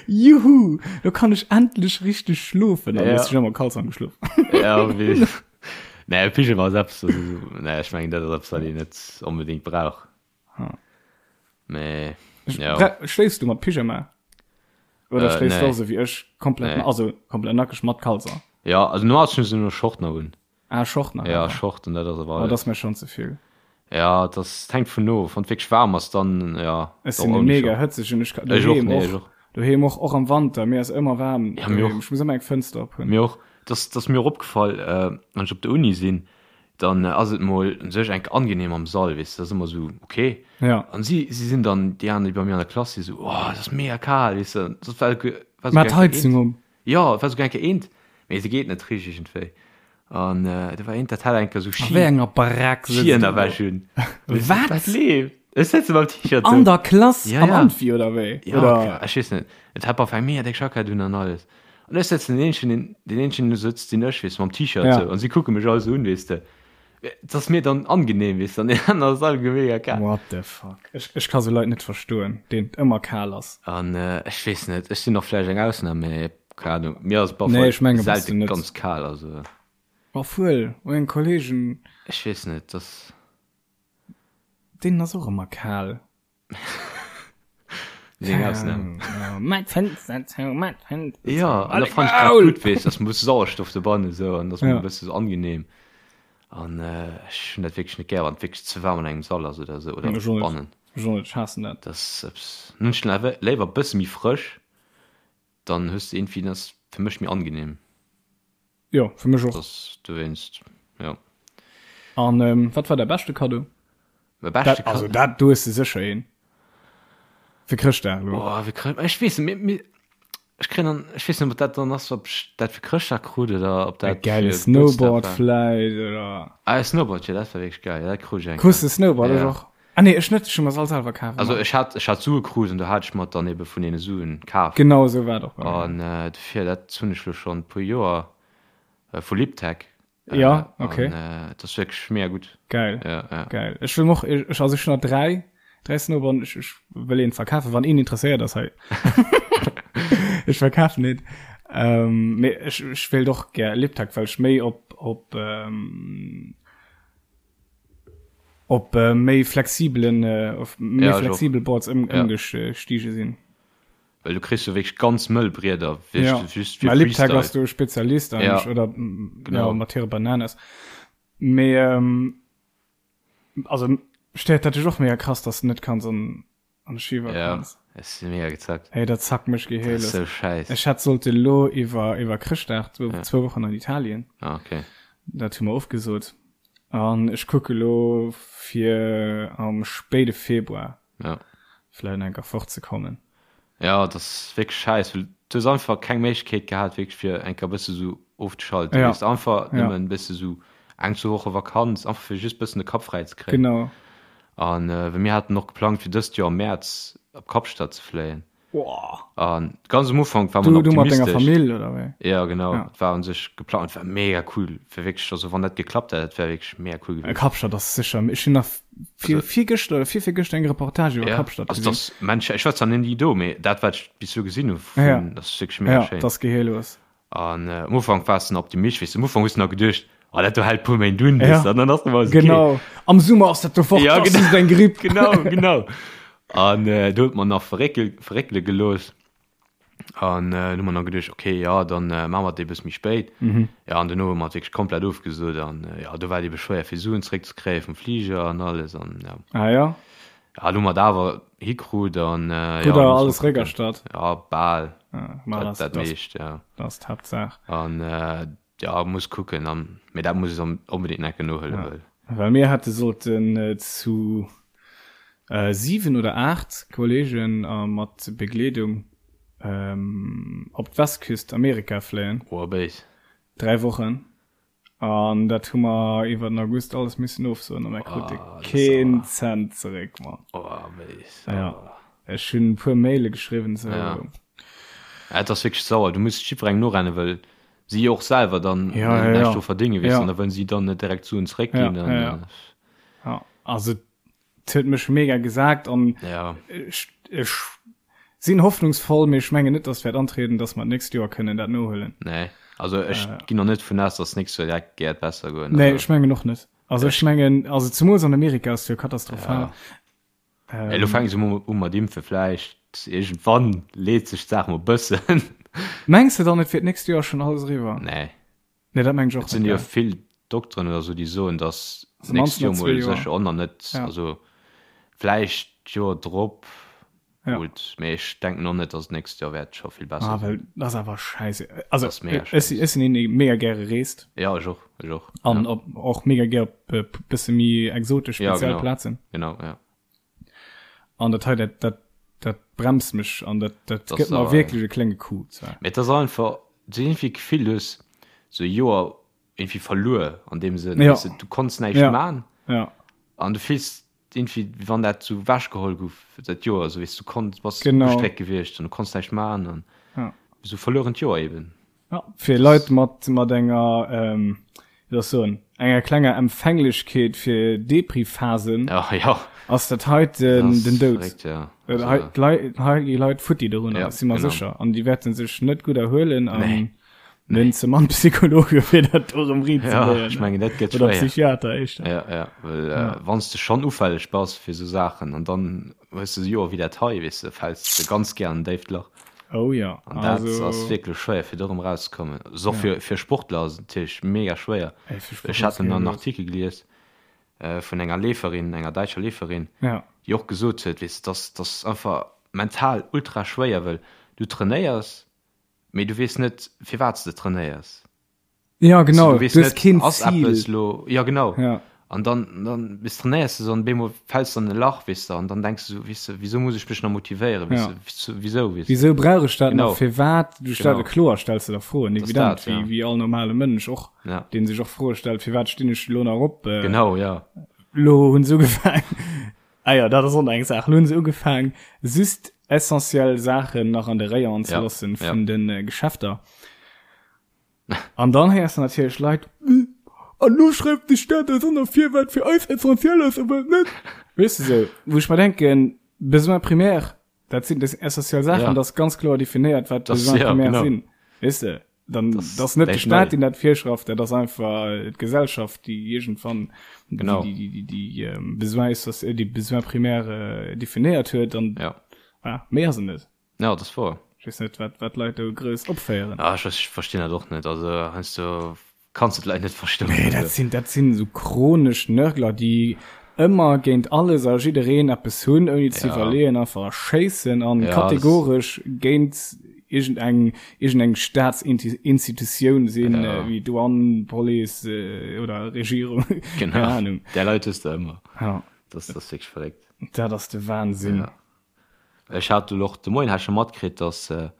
Juhu, lo kann ech endlech richteg schlofen. An Ja. ja. ech ëmmer Kalzong geschlof. Ja, wéi. Nee, Pyjama ass eppes, also, nee, ech mengen, dat ass eppes, wat een net onbedéngt brauch. Ha. Mee, ja. Schléifs du mat Pyjama? Oder Äh, schléifs du nee. och sou wéi ech, komplett, Nee. also komplett nackeg mat Kalzer? Ja, also normal hunn ech nur Short nach un. Ah, Short nach. Ja, awer. Short und dat ass awer Oh, dat alles. ass mir schon ze vill. Ja, das hängt vun of. Wann et wierklech waarm ass, dann ja. Ech och sinn ouni mega Short. hëtzeg und ech kann Ech och, doheem nee, ech och, och. doheem och, och am Wanter, mir ass ëmmer waarm Ja, mir doheem. och. Ech muss ëmmer eng Fënster op hunn. Mir och. Das, das ass mir och opgefall, äh, wann ech op der Uni sinn, dann ass et mol un sech enk angenehm am Sall, weess de, dat ass ëmmer esou ok. Ja. An si, si sinn dann, déi aner, déi bei mir an der Klass sinn, esou, oh, et ass mega kal, weess de, dat war, war Mat souguer enke Heizung eent, um. jo, et war souguer enke eent, mee se geet net richteg iergendwéi. An do war eent, dat hat enke sou A Ski, wéi enger Barack sëtzt du do? Skiënnerwäsch un. Wat? Wat leeft? Ech sëtze mam T-Shirt An do. der Klass, Ja, am ja. Amphi oder wéi? Ja, Oder? ech weess net, et hat op eng mega déck Jackett un an alles. An ech sëtzen deen eenzegen, deen, deen eenzegen do sëtzt, sinn ech, weess de, mam T-Shirt Ja. sou. An si kucke mech all sou un, weess de. Et ass mir dann angenehm, weess de, an deen aner ass all mega kal. What the fuck? Ech, ech ka sou Leit net verstoen, deenen et ëmmer kal ass. An ech weess net, ech sinn och vläicht eng Ausnam, mee keng Ahnung, mir ass op alle Nee, Fall ech menge bass du selte net. ganz kal, also. Obwuel, meng Kollegen. Ech weess net, dass. Deenen ass och ëmmer kal. Seng Ausnam. Mat Fenster zou, mat Fenster zou. Ja, an da fand ich grad gut, weess, dass man e bësse Sauerstoff dobannen esou an dass man e bësse sou angenehm. An ech hunn dat wierklech net gär, wann et wierklech ze waarm an engem Sall ass oder esou oder bannen. Ech och net, ech haassen dat. Dat ass eppes, dann hunn ech awer léiwer e bësse méi frësch, dann hues de iergendwéi, dat ass fir mech méi angenehm. Jo, fir mech och. Dass dowéinst, jo. An ähm, wat war däi beschte Kaddo? Mäi beschte Dat, also Kaddo? dat, do hues de sécher een. Fir Chrëschtdag elo. Oh, fir Chrëscht, ech weess net, mir, mir, ech kréien dann, ech weess net, ob dat dann ass, ob ech dat fir Chrëschtdag krut oder ob E dat gäile fir Gebuertsdag Snowboard war. vläit oder. Ah, e Snowboard, jo, dat war wierklech geil, dat krut ech eng Krus Kéier. de Snowboard? Ech Ja. och. Ah nee, ech net, ech hu mer se all selwer kaf Also ëmmer. ech hat, ech hat Sue krut an do hat ech mer dann ebe vun deene Suen kaf. Genau esou war et och bei mir. An dofir, dat hunn ech lo schonn e puer Joer, vu Liptech. Ja, okay. An et ass wierklech mega gutt. Geil. Ja, ja. Geil. Ech wëll och, ech, also ech hunn nach 3, 3 Snowboarden, ech, ech wëll een verkafen, wann een interesséiert ass hei. Ech verkafen een. Ähm, mee ech, ech wéilt och gär Liptech, well ech méi op, op, ähm, op méi flexibelen, op méi Ja, ech och. flexibel Boards ëm, Ja. ëmgestiege sinn. Well du kriss jo wierklech ganz mëll Brieder, Ja, wierklech just fir mä Liptech ass Freestyle. do Spezialist Ja, eigentlech, oder ja, genau. mat hire Bananas. Mee ähm, also stéiert dat dech och mega krass, dass du net kanns an an de Skiwak Ja, kanns? ech si mega gezackt. Hey, dat zackt mech Dat ass gehéiles. sou schäiss. Ech hätt sollte lo iwwer iwwer Chrëschtdag zwou Ja. zwou Wochen an Italien. Ah, okay. Dat hu mer ofgesot. An ech kucke lo fir am spéide Februar Ja. vläit enker fortzekommen. Ja, dat ass wierklech schäiss, well du hues einfach keng Méiglechkeet gehat, wierklech fir eng Kéier e bësse sou ofzeschalten. Ja. Weess de, einfach Ja. nëmmen e bësse sou eng, zwou Woche Vakanz, einfach fir just bëssen de Kapp fräi ze kréien. Genau. An well mir haten och geplangt, fir dëst Joer am Mäerz op Kapstadt ze fléien. An ganz am Ufank war man Du, du mat denger Famill oder wéi? Ja genau, ja. war un sech geplant, war mega cool, fir wierklech, also wann dat geklappt hätt, dat wär wierklech mega cool gewiescht. Kapstadt ass sécher, ech hunn nach vir, virgëschter oder virvirgëschter eng Reportage iwwer ja. Kapstadt gesinn. Also das, Mensch, ech war zwar net do, mee dat wat ech bis elo gesinn hu vun, ja. das ass wierklech mega ja, schéin. Das geheellos. An am Ufank waars de nach optimistesch, weess de, am Ufank hues de nach geduecht, oh dat do hält puer Méint un, weess de, an dann ass et okay. Genau, am Summer ass dat do fort, ja, genau. ass eng Gripp. Genau, genau. An äh, do huet mer nach verréckel, verréckele gelooss. An äh, hu mer nach geduecht, okay, ja, dann äh, maache mer et e bësse méi spéit. Mhm. Ja, an duerno hu mer et wierklech komplett ofgesot an äh, ja, do war et ebe schwéier fir Suen zeréckzekréie vum Fliger an alles an ja. Ah ja. Ja, lo hu mer et awer hikrut an äh, ja, muss alles réckerstatt? Ja, bal. Ja, ma dat, dat meescht, ja. Dat ass d'Haaptsaach. An äh, ja, muss kucken, an, mee dat muss ech onbedéngt enke nohuelen, ja. Well. Well mir hätte sollten äh, zu äh, 7 oder 8 Kollegen äh, mat Begleedung ähm, op d'Westküst Amerika fléien. Oh, béis. 3 Wochen. An dat hu mer iwwer den August alles missen ofsoen a mer krute keen Cent zeréck, Mann. Oh, béis. Ja. Ech hunn e puer Maile geschriwwen, sou. Ja. Et ass wierklech sauer. Du muss jiddwerengem norennen, well si och selwer dann ja, ja, näischt do verdéngen, weess du. An da wëllen si dann net direkt Suen zeréckginn. Ja, ja, ja. Ja, also Et huet mech mega gesagt an ja. ech, ech sinn hoffnungsvoll, mee ech mengen net, dass wäert antrieden, dass mer d'nächst Joer kënnen dat nohuelen. Nee, also ech äh, ginn noch net vun aus, dass nächst Joer direkt gäert besser goen. Nee, ech mengen och net. Also ech mengen, also zemools an Amerika ass jo katastrophal. Ja. Ähm, Elo fänke se u mat impfe vläicht iergendwann leet sech d'Saach mol bëssen. Mengs de dann et wier d'nächst Joer schonn alles eriwwer? Nee. Nee, dat mengen ech och Et sinn jo vill Dokteren oder sou, déi soen, datt d'nächst Joer mol sécher och nach net, also vläicht d'Joer drop, gutt, mee ech denken och net, datt d'nächst Joer wäert scho vill besser sinn. Ah, well dat ass awer scheisse. Also ech sinn een, dee mega gäre reest. Jo, ech och, ech och. An och mega gär op e bësse méi exotesch, speziell Plazen. Genau, jo. An dat hei, dat, dat, dat bremst mech an dat, dat gëtt mer wierklech e klénge Coup zwar. Mee et ass einfach, du hues iergendwéi d'Gefill, du hues sou e Joer iergendwéi verluer an deem Sënn, weess de, du konns näischt man an du fills iergendwéi, wéi wann dat sou ewechgeholl gouf, dat Joer, sou weess du, konns, bass ugestréckt gewiescht an du konns näischt man an sou verluerent Joer eben. Ja, fir Leit mat, mat enger, ähm, wéi soll ech soen, enger klenger Empfänglechkeet fir Depri-Phasen ja, ja. ass dat heiten den Doud. Verréckt, ja. Also, hei, d'Leit, hei gi Leit futti dorunner, ja, si mer genau. sécher. An déi wäerte sech net gutt erhuelen an nee. nee. ze mann Psychologe fir dat do erëm riit ze ja, ech mengen dat gëtt Oder Psychiater éischter. Ja, ja, well ja. Äh, wann s de schonn ufälleg bass fir sou Saachen an dann hues de Joer wéi dat hei, weess de, fäls de ganz gär an en déift Lach. Oh ja. An dat also... ass wierklech schwéier fir do erëm rauszekommen. Also och ja. fir, fir Sportler ass et natierlech mega schwéier. Ey, Ech hat en Artikel gelies äh, vun enger Leeferin, enger däitscher Leeferin, ja. déi och gesot huet, weess, dass dass einfach mental ultra schwéier, wëll du trainéiers, mee du weess net firwat s de trainéiers. Ja, genau. Du weess Du hues net, keen ass Zil. eppes lo, ja genau. Ja. An dann, dann bis trainéiers du so an bemol fäls du an e Lach, weess de, an dann denks du so, weess de, wieso muss ech mech nach motivéieren, weess Ja. de, wieso, wieso, weess de. Wieso brauch ech dat Genau. nach? Firwat? Du stell, Genau. kloer stells du der Froen, Das evident, dat, ja. wéi, wéi all normale Mënsch och, Ja. deen sech och Froe stellt, firwat stinn ech lo nach op? Äh, Genau, ja. Lo hunn se ugefaang, ah ja, dat ass och nach eng Saach, lo hunn se ugefaang, just essentiell Saachen nach an de Rayon ze Ja, loossen ja. vun den äh, Geschäfter. An dann héiers de natierlech Leit, An lo schreift de Staat eis och nach vir, wat fir eis essentiell ass a wat net. Weess de sou, wou ech mer denken, Besoins primaires, dat sinn dat sinn essentiell Saachen, Ja. dat ass ganz kloer definéiert, wat Das, Besoins ja, primaires genau. sinn. Weess de, dann Das dat ass net de näischt Staat, nei. deen dat virschreift, dat ass einfach d'Gesellschaft, déi iergendwann déi, Genau. déi, déi, déi, déi Besoins essentie-, déi Besoins primaires definéiert huet an Ja. voilà, méi ass et net. Ja, dat ass wouer. Ech weess net, wat, wat d'Leit do grouss opféieren. Ah, ech, ech verstinn dat och net. Also heiansdo kanns de d'Leit net verstoen. Nee, dat sinn, dat sinn esou chronesch Nörgler, déi ëmmer géint alles a jiddereen eppes hunn, ouni ze Ja. iwwerleeën, einfach schéissen an Ja, das- kategoresch géint iergendeng, iergendeng Staatsinstitutioun sinn, Ja. wéi Douane, Police oder Regierung. Genau. Keng Ahnung. Där Leit hues de ëmmer. Ja. Das, das ass wierklech verréckt. Dat ass de Wahnsinn. Ja. Ech hat elo och de Moien hat ech scho matkritt, datt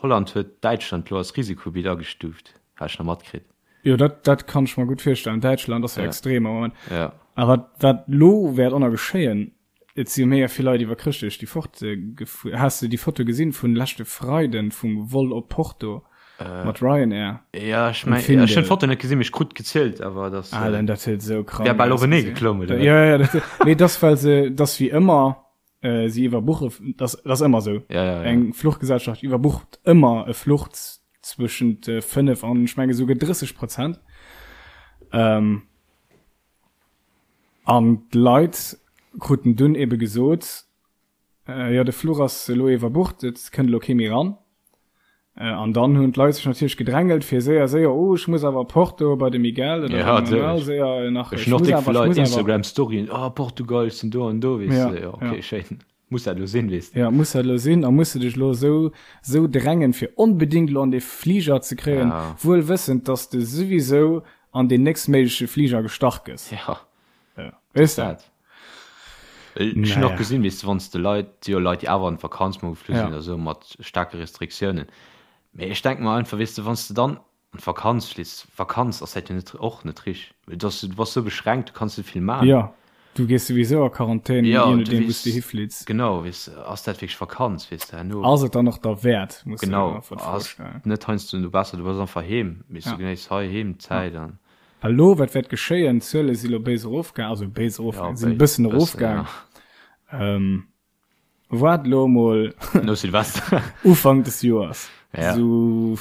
Holland huet Däitschland elo als Risikogebitt agestuuft, hat ech nach matkritt. Jo, dat, dat kann ech mer gutt virstellen. Däitschland ass jo Ja. extrem am Moment. Ja. A wat, wat elo wäert och nach geschéien, Et si jo mega vill Leit iwwer Chrëschtdeeg déi fort gefuer. Has de déi Foto gesinn vun leschte Freiden vum Vol op Porto mat Ryanair? Ja, ech meng, ech hunn d'Foto net gesinn, mee ech krut gezielt, awer dass. Ah, dann dat huet esou krank. Wär bal openee geklomm, oder? Ja, ja, dat, mee dass well se, dass wéi ëmmer si iwwerbuche, dass, dass ëmmer esou. Ja, ja, ja. Eng Fluchgesellschaft iwwerbucht ëmmer e Fluch zwëschent 5 an ech menge souguer 30 Prozent. Ähm. An d'Leit kruten dunn ebe gesot, Jo, de Fluch ass elo iwwerbucht, et kënnt elo kee méi eran. An dann hunn d'Leit sech natierlech gedrängelt, fir séier, séier, Oh, ech muss awer op Porto bei de Miguel oder beim Manuel, séier nach, ech muss awer, ech muss awer. Instagram-Storyen, Oh, Portugal, ech sinn do an do, weess de. Jo, okay, schéin. Muss dat elo sinn, weess de. Jo, muss dat elo sinn. A muss de dech elo esou, esou drängen, fir onbedéngt elo an dee Fliger ze kréien, wuel wëssend, dass de souwisou an deen nächstméigleche Fliger gestach gëss. Ja. Ja. Weess de? Dat. Ech hunn och gesinn, weess de, wann s de Leit, si jo Leit, déi awer an d'Vakanz mol geflu sinn oder esou, mat staarke Restriktiounen. Mee ech denke mer einfach, weess de, wann s de dann An d'Vakanz fliss. Vakanz ass dat jo net och net rich. Well du du bass sou beschränkt, du kanns net vill man. Jo, du gees souwisou a Quarantän, je nodeem wou s du hiflitts. Genau, weess de, ass dat wierklech Vakanz, weess de, herno. Ass et dann och derwäert, muss de der einfach d'Fro stellen. Genau, ass net heiansdo no besser, du bass einfach heem, weess du, genéiss hei heem d'Zäit an. Well elo, wat wäert geschéien, d'Zuele si lo béis erofgaang, also béis erofgaang, sinn e bëssen erofgaang. Waart elo emol No Silvester. Ufank des Joers, Ja. esou,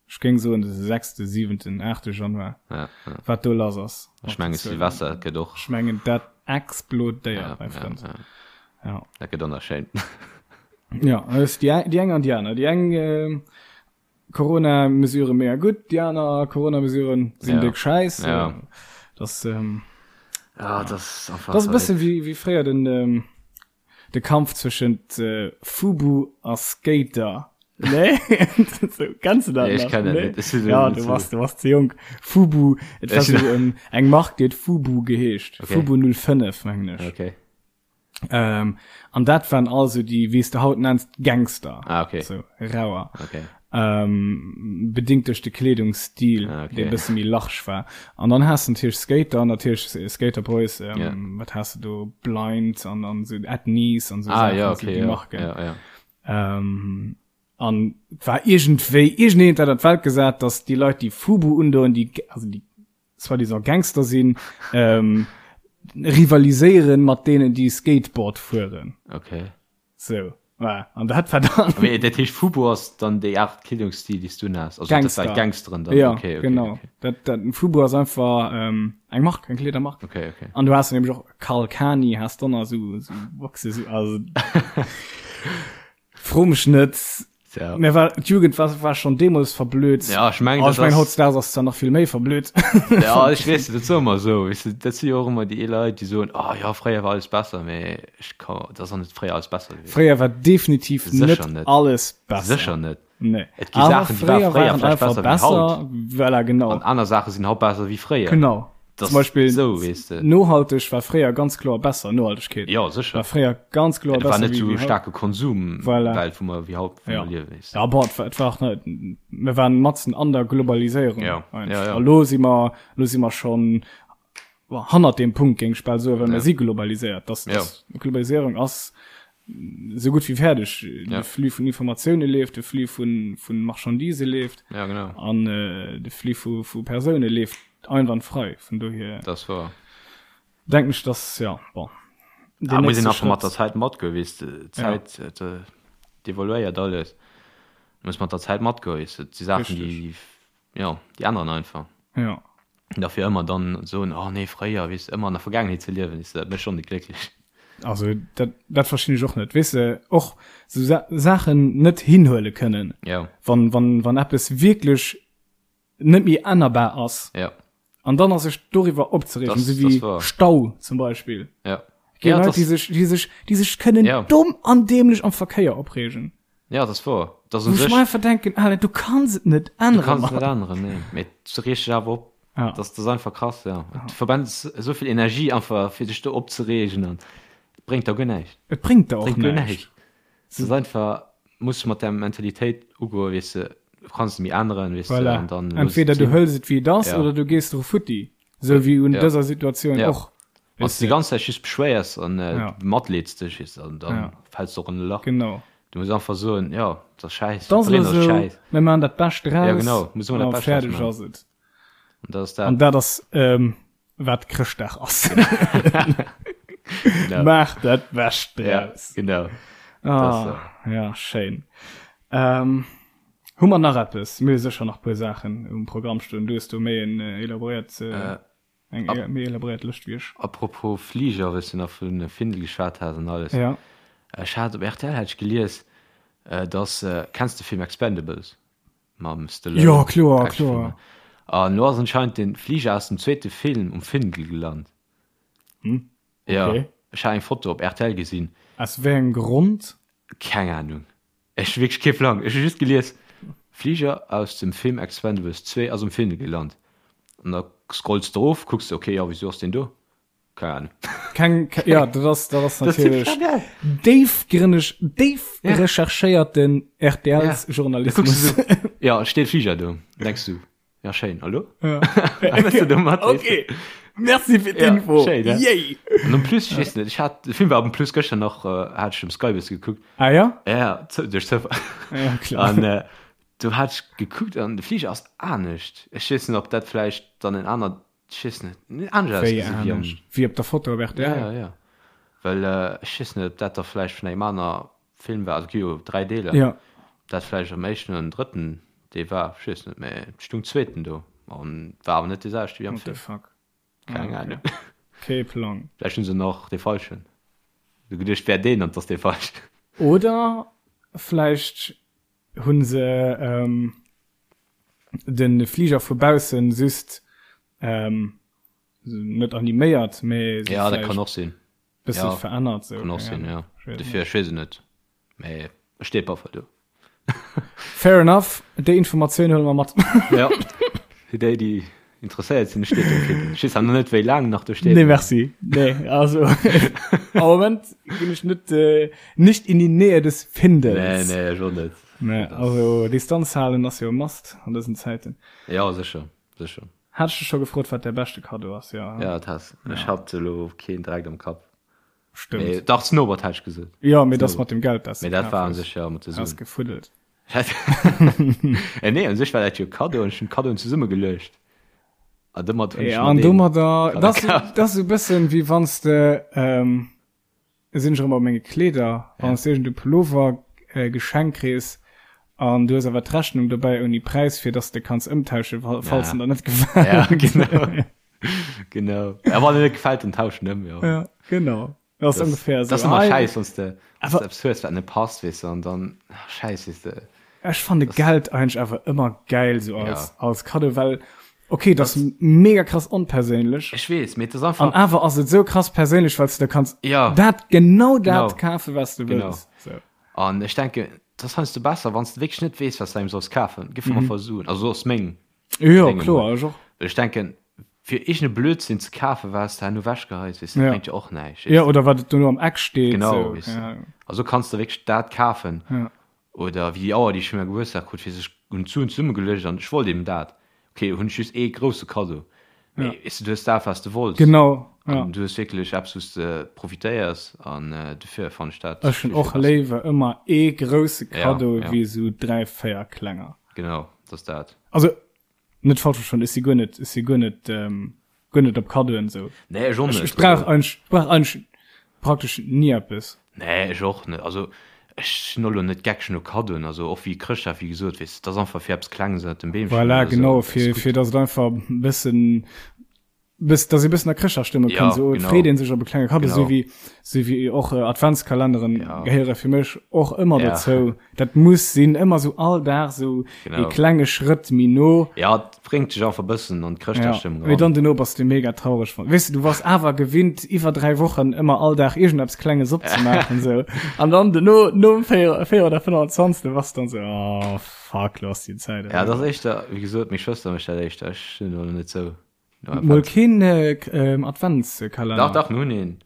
ech géing soen de sechste, siwenten, aachte Januar, Ja, ja. wat do lass ass. Ech menge Silvester gëtt och. Ech mengen dat explodéiert, Ja, mäi ja, Frënd. ja. Ja. Dat gëtt donnerschéin. Ja, dat ass déi, déi eng an déi aner. Déi eng Corona-Mesurë mega gutt, déi aner Corona-Mesuren sinn Ja. déck schäiss. Ja. Das, ähm, Ja, dat ass einfach. das ass e bësse wéi, wéi fréier den, ähm, de Kampf zwëschent äh, Fubu a Skater. Nee? so, kennst du dat Nee, ech nach? kenn dat Nee? net. Ech sinn Ja, net du so- warst, du warst ze jonk. Fubu, et war Ech- so ähm, eng Mark, déi huet Fubu geheescht. Okay. Fubu 05, mengen ech. Okay. Ähm, an dat waren also déi, wéi s de haut nenns, Gangster. Ah, okay. So, rauer. Okay. Ähm, bedingt duerch de Kleedungsstil, ah, okay. dee bësse méi large war. An dann has de natierlech Skater, natierlech äh, Skater Boys, ähm, yeah. wat has de do, Blind an, an so At Knees an so ah, Sachen, ja, so okay, déi ja. Marken. Ja, ja. Ähm, an et war iergendwéi, iergendeen hat dat an d'Welt gesat, dass déi Leit, déi Fubu undoen, déi, also déi soi-disant Gangster sinn, ähm, rivaliséieren mat deenen, déi Skateboard fueren. Okay. So, voilà. An dat war dann. Mee dat heescht, Fubu ass dann déi Aart Kleedungsstil, déi s du unhas? Also Gangster. dat war Gangsteren dann? Ja, okay, okay, genau. Okay. Dat, dat, Fubu ass einfach ähm, eng Mark, eng Kleedermark. Okay, okay. An du has nämlech och Karl Kani, has dann nach so, so Boxe, so, also. Fro mech net. Ja. Mir war d'Jugend war, war schon deemools verblöd. Ja, ech mengen, oh, ech dat mengen ass- hautdesdaags ass zwar nach vill méi verblöd. Ja, ech weess, dat soe mer esou, weess de, dat si jo och ëmmer déi Leit, déi soen, oh ja, fréier war alles besser, mee ech ka, dat ass och net fréier alles besser gewiescht. Fréier war definitiv Sécher net net. alles besser. Sécher net. Nee. Et gi Saachen, déi ware Awer fréier fréier waren vläicht einfach besser wéi haut. besser. Voilà, genau. An aner Saache sinn haut besser wéi fréier. Genau. Das Zum Beispiel so, weess de. nohalteg war fréier ganz kloer besser, Nohaltegkeet. Ja, sécher. War fréier ganz kloer Et war besser net wéi, sou wéi haut. staarke Konsum, Voilà. Welt, wou mer wéi haut, wou Ja. mer liewen, weess de. Ja, bon, et war, et war och net, mir waren matzen an der Globaliséierung. Ja, einfach. ja, ja. A lo si mer, lo si mer schon bon, hannert deem Punkt, géing ech bal soen, well Ja. mir si globaliséiert. Das, Ja. das, Globaliséierung ass esou gutt wéi fäerdeg. Ja. De Flux vun Informatioune leeft, de Flux vun, vun Marchandisë leeft. Ja, genau. An äh, de Flux vu, vu Persoune leeft einwandfrei. Vun dohier Dat ass wahr. denken ech, dass, ja, bon. Da Den muss een nächste einfach mat Schrëtt. der Zäit matgoen, weess de. Ja. D'Zäit, äh, d'evoluéiert alles. Du muss mat der Zäit matgoen, weess de. Et si Saachen, Richtig. déi, jo, déi änneren einfach. Ja. Dafir ëmmer dann soen, oh nee, fréier, weess de, ëmmer an der Vergaangenheet ze liewen, weess de, dat mécht schonn net glécklech. Also dat, dat verstinn ech och net, weess de, och sou Sa Saachen net hinhuele kënnen, Ja. wann, wann, wann eppes wierklech net méi ännerbar ass. Ja. An dann a sech doriwwer opzereegen, Das, sou das wéi war. Stau zum Beispill. Ja. Gi Ja, Leit, das, déi sech, déi sech, déi sech kënnen Ja. domm an dämlech am Verkéier opreegen. ja, das war. Das un Wou ech sech, mer einfach denken, Alter, du kanns et net du änneren, kanns et Mann. net änneren, nee. Mee du reegst dech awer op. Ja. Das, das ass einfach krass, ja. Du verbrennst esou vill Energie einfach, fir dech do opzereegen an et bréngt der guer näischt. Et bréngt der och Bréngt guer näischt. näischt. Et ass einfach, muss mat där Mentalitéit ugoen, weess de, du kanns et méi änneren, weess de, Voilà. an dann looss et Entweder du sinn. hëls et wéi et ass Ja. oder du gees dru futti. Sou wéi un Ja. dëser Situatioun Ja. och. Wann s de déi ganz Zäit just beschwéiers an matleeds dech, weess de, an dann fäls de och an e Lach. Genau. Du muss einfach soen, jo, et ass schäiss, Et ass elo esou, mir maachen dat Bescht draus. Ja, genau, muss ëmmer dat Bescht draus maachen. A fäerdeg ass et. An dat ass dat. An dat ass, wat Chrëschtdag ass. Genau. Maach dat Bescht draus. Ja, genau. Ah, ja, schéin. Hu mer nach eppes? Mir hu sécher nach e puer Saachen um Programm stoen. Du hues do méi en elaboréiert. Eng Ap méi elaboréiert Lëscht wéi ech. Apropos Fliger, wëlls du nach vun Findel geschwat has an alles. Ja. Ech hat op rtl hat ech gelies, dass, kenns de Film Expendables mam Stallone? Jo, kloer, kloer. An lo ass anscheinend den Fliger aus dem zweete Film um Findel gelant. Hm, okay. Ja, ech hat eng Foto op rtl gesinn. Aus wéi engem Grond? Keng Ahnung. Ech hu wierklech kee Plang. Ech hu just gelies, Fliger aus dem Film Expendables 2 ass um Findel gelant. An da scrolls de erof, kucks de, okay, jo, wisou ass deen do? Keng Ahnung. Keng, ja, dat ass, dat ass natierlech déifgrënneg, déif recherchéierten RTLs-Journalismus. Ja, et steet Fliger do. Denks du, Ja, schéin. Hallo? Ja. okay. Merci fir d'Info. Ja, schéin, Yay! An en plus, ich weess net, ich hat, de Film war en plus gëschter nach, äh, hat ich um Sky bësse gekuckt. Ah ja? Ja, duerch Zoufall. Ja, klar. An äh, do hat ich gekuckt an de Fliger ass anescht. Ech weess net, ob dat vläicht dann en aner, ich weess net, anescht ausgesinn wéi am. Wéi op der Foto op rtl? Ja, ja, ja. Well äh, ech weess net, ob dat da vläicht vun engem aner Film war, also et gi jo 3 Deeler, ja. dat vläicht am éischten oder drëtten dee war, ech weess net, mä et stung zweeten do an war awer net dee selwechte wéi am Film. What the fuck? Keng Ahnung. Kee Plang. Vläicht hunn se nach dee falschen du geduecht wär deen an 't ass dee falschen. Oder vläicht hunn se ähm, de Fliger vu baussen just ähm, net animéiert, mä ja, dat kann och sinn. Bësse ja, verännert sou. Kann och sinn, ja. Dofir, ech weess et net. Mee et steet op alle Fall do. Fair enough, déi Informatioun huele mer mat. Ja, fir déi, déi interesséiert sinn, et steet do fir. Ech weess awer net, wéi laang nach do steet. Nee, merci. Nee, also am Moment ginn ech net, äh, nicht in die Nähe des Findels. Nee, nee, ech och net. Nee, also Distanz halen ass jo e Must an dësen Zäiten. Ja, sécher, sécher. Hat ech dech scho gefrot wat däi beschte Kaddo ass? Jo. Ja, dat has. Ech hat elo keen direkt am Kapp. Stëmmt. Mee dach, Snowboard hat ech gesot. Jo, mee dat ass mat dem Geld, dat s de Mee dat war u sech jo mat de Suen. Has gefuddelt. Eh nee, u sech war dat jo Kaddo an ech hunn d'Kaddoen zesummegeluecht. An domat hunn ech mer deen. An domadder, dat ass esou e bëssen, wéi wann s de, Sinn ech erëm op menge Kleeder, wann s de iergend e Pullover geschenkt kriss an du hues awer d'Rechnung dobäi ouni Präis, fir dass de kanns ëmtauschen, falls en der net gefält. Ja, genau. Genau. Ja, wann en net gefält, dann tausch en ëm, jo. Ja, genau. Dat ass ongeféier esou. Dat ass ëmmer schäiss, wann s de eppes hues, wat net passt, weess de, an dann, schäiss, weess de. Ech fanne Geld eigentlech awer ëmmer gäil sou als, als Kaddo, well okay, dat ass mega krass onperséinlech. Ech weess, mee et ass einfach. An awer ass et sou krass perséinlech, well s de da kanns ja. dat genau dat kafen, wat s de wëlls. Genau. An ech denken, et ass heiansdo besser, wann s de wierklech net weess, wat s de engem solls kafen, giff mer mm. Suen. Also ass meng. Jo, kloer, ech och. Well ech denken, fir iergende Blödsinn ze kafen, wat s de herno wechgeheis, weess de, ja. bréngt jo och näischt. Ja, oder wat et dono am Eck steet. Genau, so. weess de. Ja. Also kanns de wierklech dat kafen. Ja. Oder wéi déi Auer, déi ech fir mäi Gebuertsdag krut, fir sech hunn d'Suen zesummegeluecht an ech wollt eben dat. Ok, hunn ech just ee grousse Kaddo. Mee weess de, du hues dat, wat s de wollts. Genau, ja. An du hues wierklech eppes, wou s de profitéiers an dofir fannen ech dat Ech hunn vill, vill och besser. léiwer ëmmer ee grousse Ja, Kaddo ja. wéi esou 3, 4 klenger. Genau, dat ass dat. Also, Net falsch verstoen, ech si guer net, ech si guer net, guer net op Kaddoen esou. Nee, ech och net. Ech brauch eigentlech, ech brauch eigentlech praktesch ni eppes. Nee, ech och net. Also ech sinn och elo net geckeg no Kaddoen, also och wéi Chrëschtdag, wéi gesot, weess de, et ass einfach fir eppes Klenges ënnert dem Beemchen Voilà, oder esou, genau, fir, fir datt et einfach e bëssen, Bëss, dass ee bëssen a Chrëschtdagsstëmmung Ja, kënnt, esou genau. freet een sech op e klenge Kaddo, Genau. esou wéi, esou wéi och äh, Adventskalenderen Ja. gehéiere fir mech och ëmmer Ja. dozou. Dat muss sinn, ëmmer esou all Dag esou Genau. ee klenge Schrëtt méi no. Ja, et bréngt dech einfach bëssen an Ja. d'Chrëschtdagsstëmmung Mee eran. dann dono bass du mega traureg. wann- Weess du, du wars awer gewinnt, iwwer 3 Wochen ëmmer all Dag iergendeppes Klenges opzemaachen, esou. An dann dono, nom 4, 4 oder 25. bass du dann esou, oh fuck, lo ass déi Zäit Ja, dat ass eriwwer. éischter, wéi gesot, meng Schwëster mécht dat éischter, ech sinn elo net esou. Mol keen Adventskalender? Dach, dach, mir hunn een.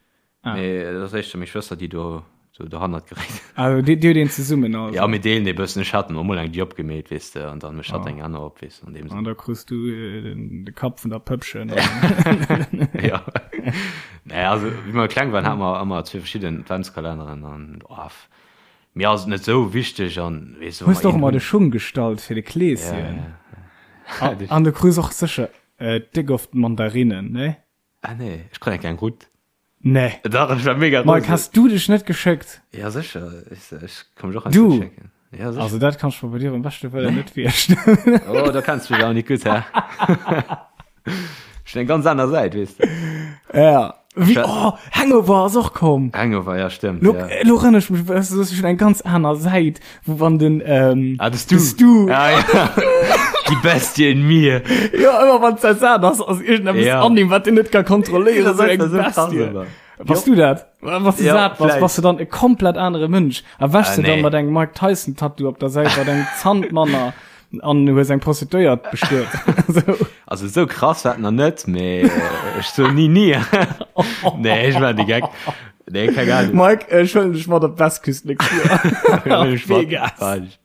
Ah. Mee dat ass éischter meng Schwëster, déi do sou dohannert geréit. Also dir, dir hutt een zesummen also? Ja, mir deelen ee bëssen. Ech hat emol eng déi opgemeet, weess de, an dann mécht hatt eng aner op, weess de, an deem Sënn. An da krus du de Kapp vun der Pëppchen. Ja. Nee, also wéi mer kleng waren, hate mer ëmmer zwee verschidden Adventskalenneren an oh, mir ass et net sou wichteg an weess du, wa Hues mer de och een ëmmer de hunn. Schung gestallt fir de Ja, Kleeschen? ja, ja. An du krus och sécher déck oft Mandarinnen, nee? Ah nee, ech krut eng kleng Rutt. Nee. Dach, ech war mega Mike, rose. has du dech net geschéckt? Ja, sécher. Ech, ech ka mech och heiansdo Du? schécken. Ja, sécher. Also dat kann ech mer bei dir beim beschte Wëllen net virstellen. Oh, da kenns du mech awer net gutt, hä? Ech hunn eng ganz aner Säit, weess de. Ja. Wéi, oh, Hangover ass och komm. Hangover, ja, stëmmt, Lo, ja. lo erënnere ech mech, weißt du, das ist schon eng ganz aner Säit, wou wann den, ähm, Ah, de Stu. De Stu. Ah, ja. Die Bestie in mir. Ja, ëmmer wann es dat ass, ass irgendeppes ja. an ihm, wat den net ka kontrolléieren. So eng Bestie. Bass du dat? Wann du ja, sat bass, bass du dann e komplett anere Mënsch. A wäschst ah, du nee. dann mat engem Mike Tyson Tattoo op der Säit, mat engem Zant manner an hues eng Prostituéiert bestuet. so. Also so krass war nach net, mee äh, ech so nie nie. nee, ech war de Geck. Nee, keng Ahnung. Mike, ech huelen dech mat op d'Westküst nächst Joer. Vegas.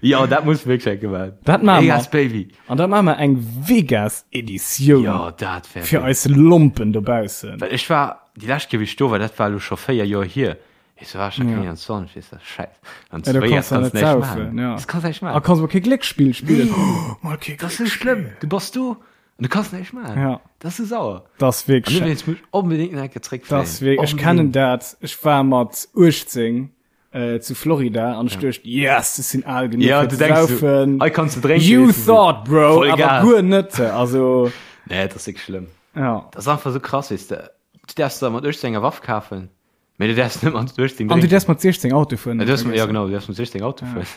Ja, dat muss wierklech eng gemaach. Dat maache mer. Vegas, Baby. An da maache mer eng Vegas-Editioun. Ja, dat wär. Fir eis Lompen dobaussen. Well ech war, déi lescht Kéier, wéi ech do war, dat war elo scho 4 Joer hier. Weess du, war ech nach keng 21, weess du, Schäiss. An zu Vegas kanns du näischt maachen. Ja. Das kanns näischt maachen. A kanns mol kee Glécksspill spillen. Nee. Mol kee Dat ass sou schlëmm. Du bass do an du kanns näischt maachen. Ja. Dat ass sou sauer. Dat ass wierklech. An dowéinst muss ech onbedéngt nach eng Kéier zréckfléien. Dat ass wierklech, ech kennen dat. Ech war mat 18 äh, zu Florida an ech ja. duecht yes, ech sinn al genug ja, du denkst, saufen. Du, kannst du trinken, you thought bro Voll awer guer net also nee, das ist schlimm ja. das ist einfach so krass weißt du du darfst da mat 18 enger Waff kaufen mee du darfst net mat 18 an du darfst mat 16 Auto fueren ja, du darfst, ja genau du darfst mat 16 Auto ja. fueren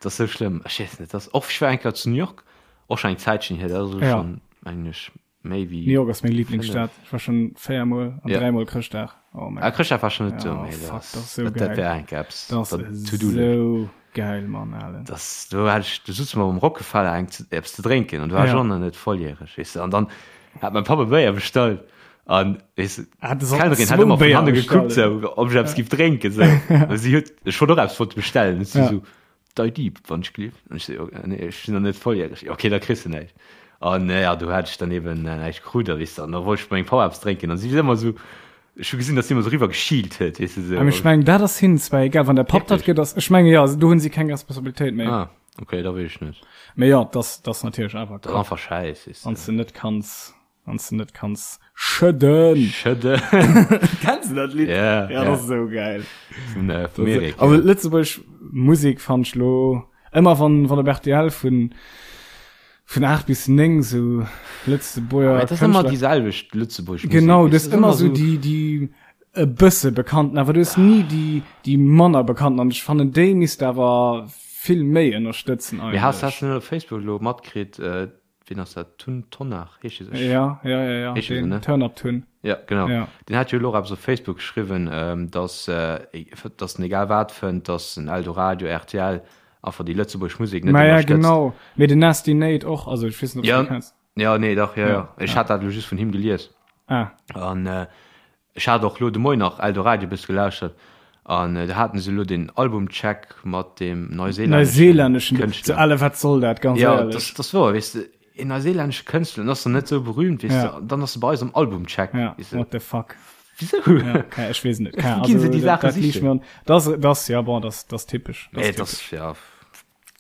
das ist so schlimm ich weiß nicht das och ich war enker zu New York och schon eng Zäitchen hier das ist ja. schon eigentlich Méi wéi New York ass meng Lieblingsstad. Ech war schon véiermol an ja. dräimol Chrëschtdag. Oh mein ah, Chrëschtdag war schon net do, oh, fuck, das, das so geil. Dat wär eng eppes. Das ass sou geil, Mann, Alen. Das, do hat ech, do sutze mer um Rockefeller eng eppes ze drénken an du war ja. schon net volljähreg, weess du. An dann hat mein Papa Béier bestallt an weess du, ah, d'Kellnerin hat ëmmer vun hanne gekuckt, sou, ob ech eppes giff drénken, sou. Si huet, ech wollt och eppes wollt bestellen, si ja. sou, Dei Dieb, wann ech gleef. An ech sou, nee, ech sinn nach net volljäreg. Jo, okay, da kriss de näischt. An ja, do hat ech dann eben näischt krut, a weess de, an da wollt ech bei mengem Papa eppes drénken, an si huet ëmmer sou, ech hu gesinn, datt si ëmmer sou eriwwer geschielt huet, weess de, sou. Ech mengen, dat ass hinnen zwar egal, wann der Papp dat gëtt, ass, ech menge jo, do hunn si keng Responsabilitéit méi. Ah, okay, da weess ech net. Mee jo, dat ass, dat ass natierlech awer. Dat ass einfach schäiss, weess de. Wann s de net kanns. Wann du net kanns schëdden. Schëdden. Kennst du dat Lidd? Ja. Ja, dat ass esou geil. Vun, äh, vum Erik. Also Lëtzebuerg Musek fand ech lo ëmmer wann wann op RTL vun vun 8 bis 9 sou Lëtzebuerger Dat ass ëmmer déi selwecht Lëtzebuerg Musek. Genau, du hues ëmmer sou déi déi e bësse bekannten, awer du hues ni déi déi manner bekannten an ech fannen déi misst awer vill méi ënnerstëtzen eigentlech. Mee has has du net op Facebook lo matkritt, äh, Wien ass dat? Tun Tonnar heescht hie sech? Ja, ja, ja, ja. Heescht hie sou, ne? Turn Up Tun. Ja, genau. Ja. Deen hat jo elo och eppes op Facebook geschriwwen, dass, dass en egal wat fënnt, dass en Eldoradio, rtl einfach déi lëtzebuergesch Musek net ënnerstëtzt. Ma ja, genau. Mee den Nasty Nate och, also ech weess net, ob s du dee kenns. Ja, nee, dach, ja, ja. Ech hat dat elo just vun him gelies. Ah. An Ech hat och lo de Moien nach Eldoradio bësse gelauschtert an do haten se lo den Albumcheck mat dem neuseelänneschen Kënschtler. Ale wat soll dat ganz éierlech? Ja, dat ass wouer, weess de, een neuseelännesche Kënschtler, den ass dann net sou berühmt, weess de, dann ass e bei eis am Albumcheck. Ja, what the fuck. Wisou? Ja, okay, ech weess net. Wou ginn se déi Saache sichen? Dat ass, ja bon, dat ass typesch. Nee, dat ass, ja.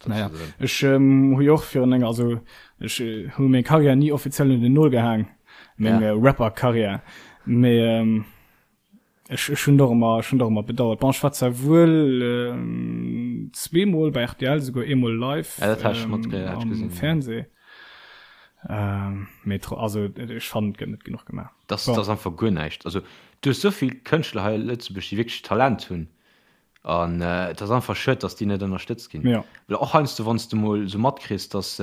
Naja, ech ähm, hu jo och virun enger, also ech äh, hu meng Karriär ni offiziell un den Nol gehaang, meng ja. äh, Rapper-Karriär. Mee ähm, ech, ech hunn doch ëmmer, ech hunn doch ëmmer bedauert. Bon, ech war zwar wuel ähm, zweemol bei RTL, souguer eemol live ja, dat ähm, mat, ja, am gesehen, Fernseh. Ähm, mee also ech fannen, et gëtt net genuch gemaach. Das, bon. das ass einfach guer näischt. Also du hues souvill Kënschtler hei a Lëtzebuerg, déi wierklech Talent hunn. An et ass einfach schued, dass déi net ënnerstëtzt ginn. Ja. Well och heiansdo, wann s de mol esou matkriss, dass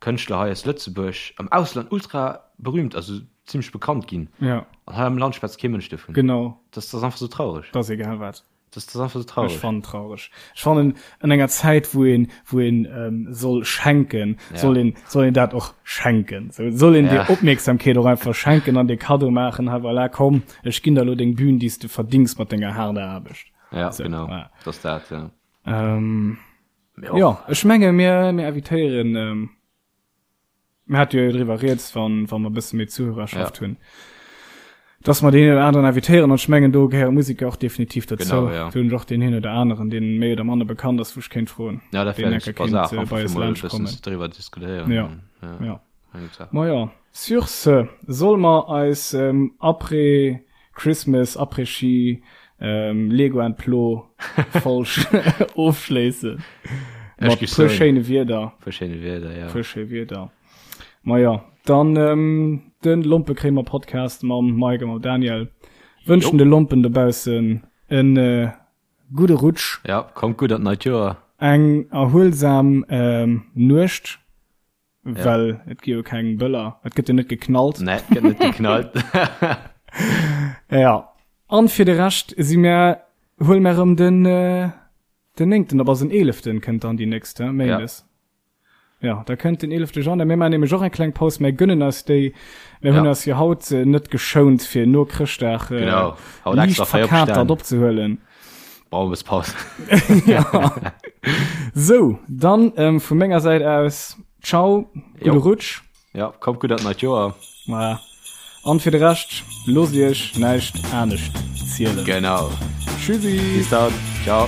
Kënschtler hei aus Lëtzebuerg am Ausland ultra berühmt, also zimmlech bekannt ginn. Ja. An hei am Land schwätzt kee Mënsch dovun. Genau. Das, das ass einfach esou traureg. Dat ass egal wat. Das, das ass einfach esou traureg. Ech fannen traureg. Ech fannen, an enger Zäit, wou een, wou een ähm, soll schenken, ja. soll een, soll een dat och schenken. So, soll een ja. dir Opmierksamkeet och einfach schenken an dir Cadeau maachen, hei voilà, komm, Ech ginn der elo deng Bühn, déi s de verdings mat denger haarder Aarbecht. Ja, so, genau. Ja. Dat ass dat, ja. Ähm, jo, ech menge mir, mir invitéieren, ähm, mir hate jo driwwer rieds, wann, wann mer e bësse méi Zuhörerschaft ja. hunn. Dass mer deen een oder aneren invitéieren, an ech mengen do gehéiere Museker och definitiv dozou. Genau, ja. Do hunn ech och deen een oder aneren, deen méi oder manner bekannt ass, wou ech kéint froen, Ja, dat wär eng super Saach, einfach fir mol e bëssen driwwer diskutéieren. Ja, ja. Ma jo, sur ce, solle mer eis Après Christmas, Après-Ski, Lego and Plo Folg ofschléissen? Mat puer schéine Wierder. Puer schéine Wierder, ja. Puer schéi Wierder. Ma jo, dann de Lompekréimer Podcast mam Mike a mam Daniel wënschen de Lompen dobaussen e gudde Rutsch. Ja, kommt gutt an d'neit Joer. Eng erhuelsam Nuecht, well et gi jo keng Bëller, et gëtt jo net geknallt. Nee, et gëtt net geknallt. Ja, an fir de Rescht si mär, huele mär erëm den den néngten op, also den eeleften kënnt dann déi nächst, he, Méindes. Ja, da kënnt den 11. Januar. Mir maachen nämlech och eng kleng Paus. Mir gönnen eis déi. Mir hunn eis jo haut äh, net geschount, fir no Chrëschtdag äh, genau. haut liicht verkatert opzehuelen. Brauchen wir Paus. ja. So, dann ähm, vu menger Säit aus, ciao, gudde Rutsch. Ja, kommt gutt an d'neit Joer. Voilà. An fir de Rescht, loosst iech näischt anescht zielen. Genau. Tschüssi. Bis dann. Ciao.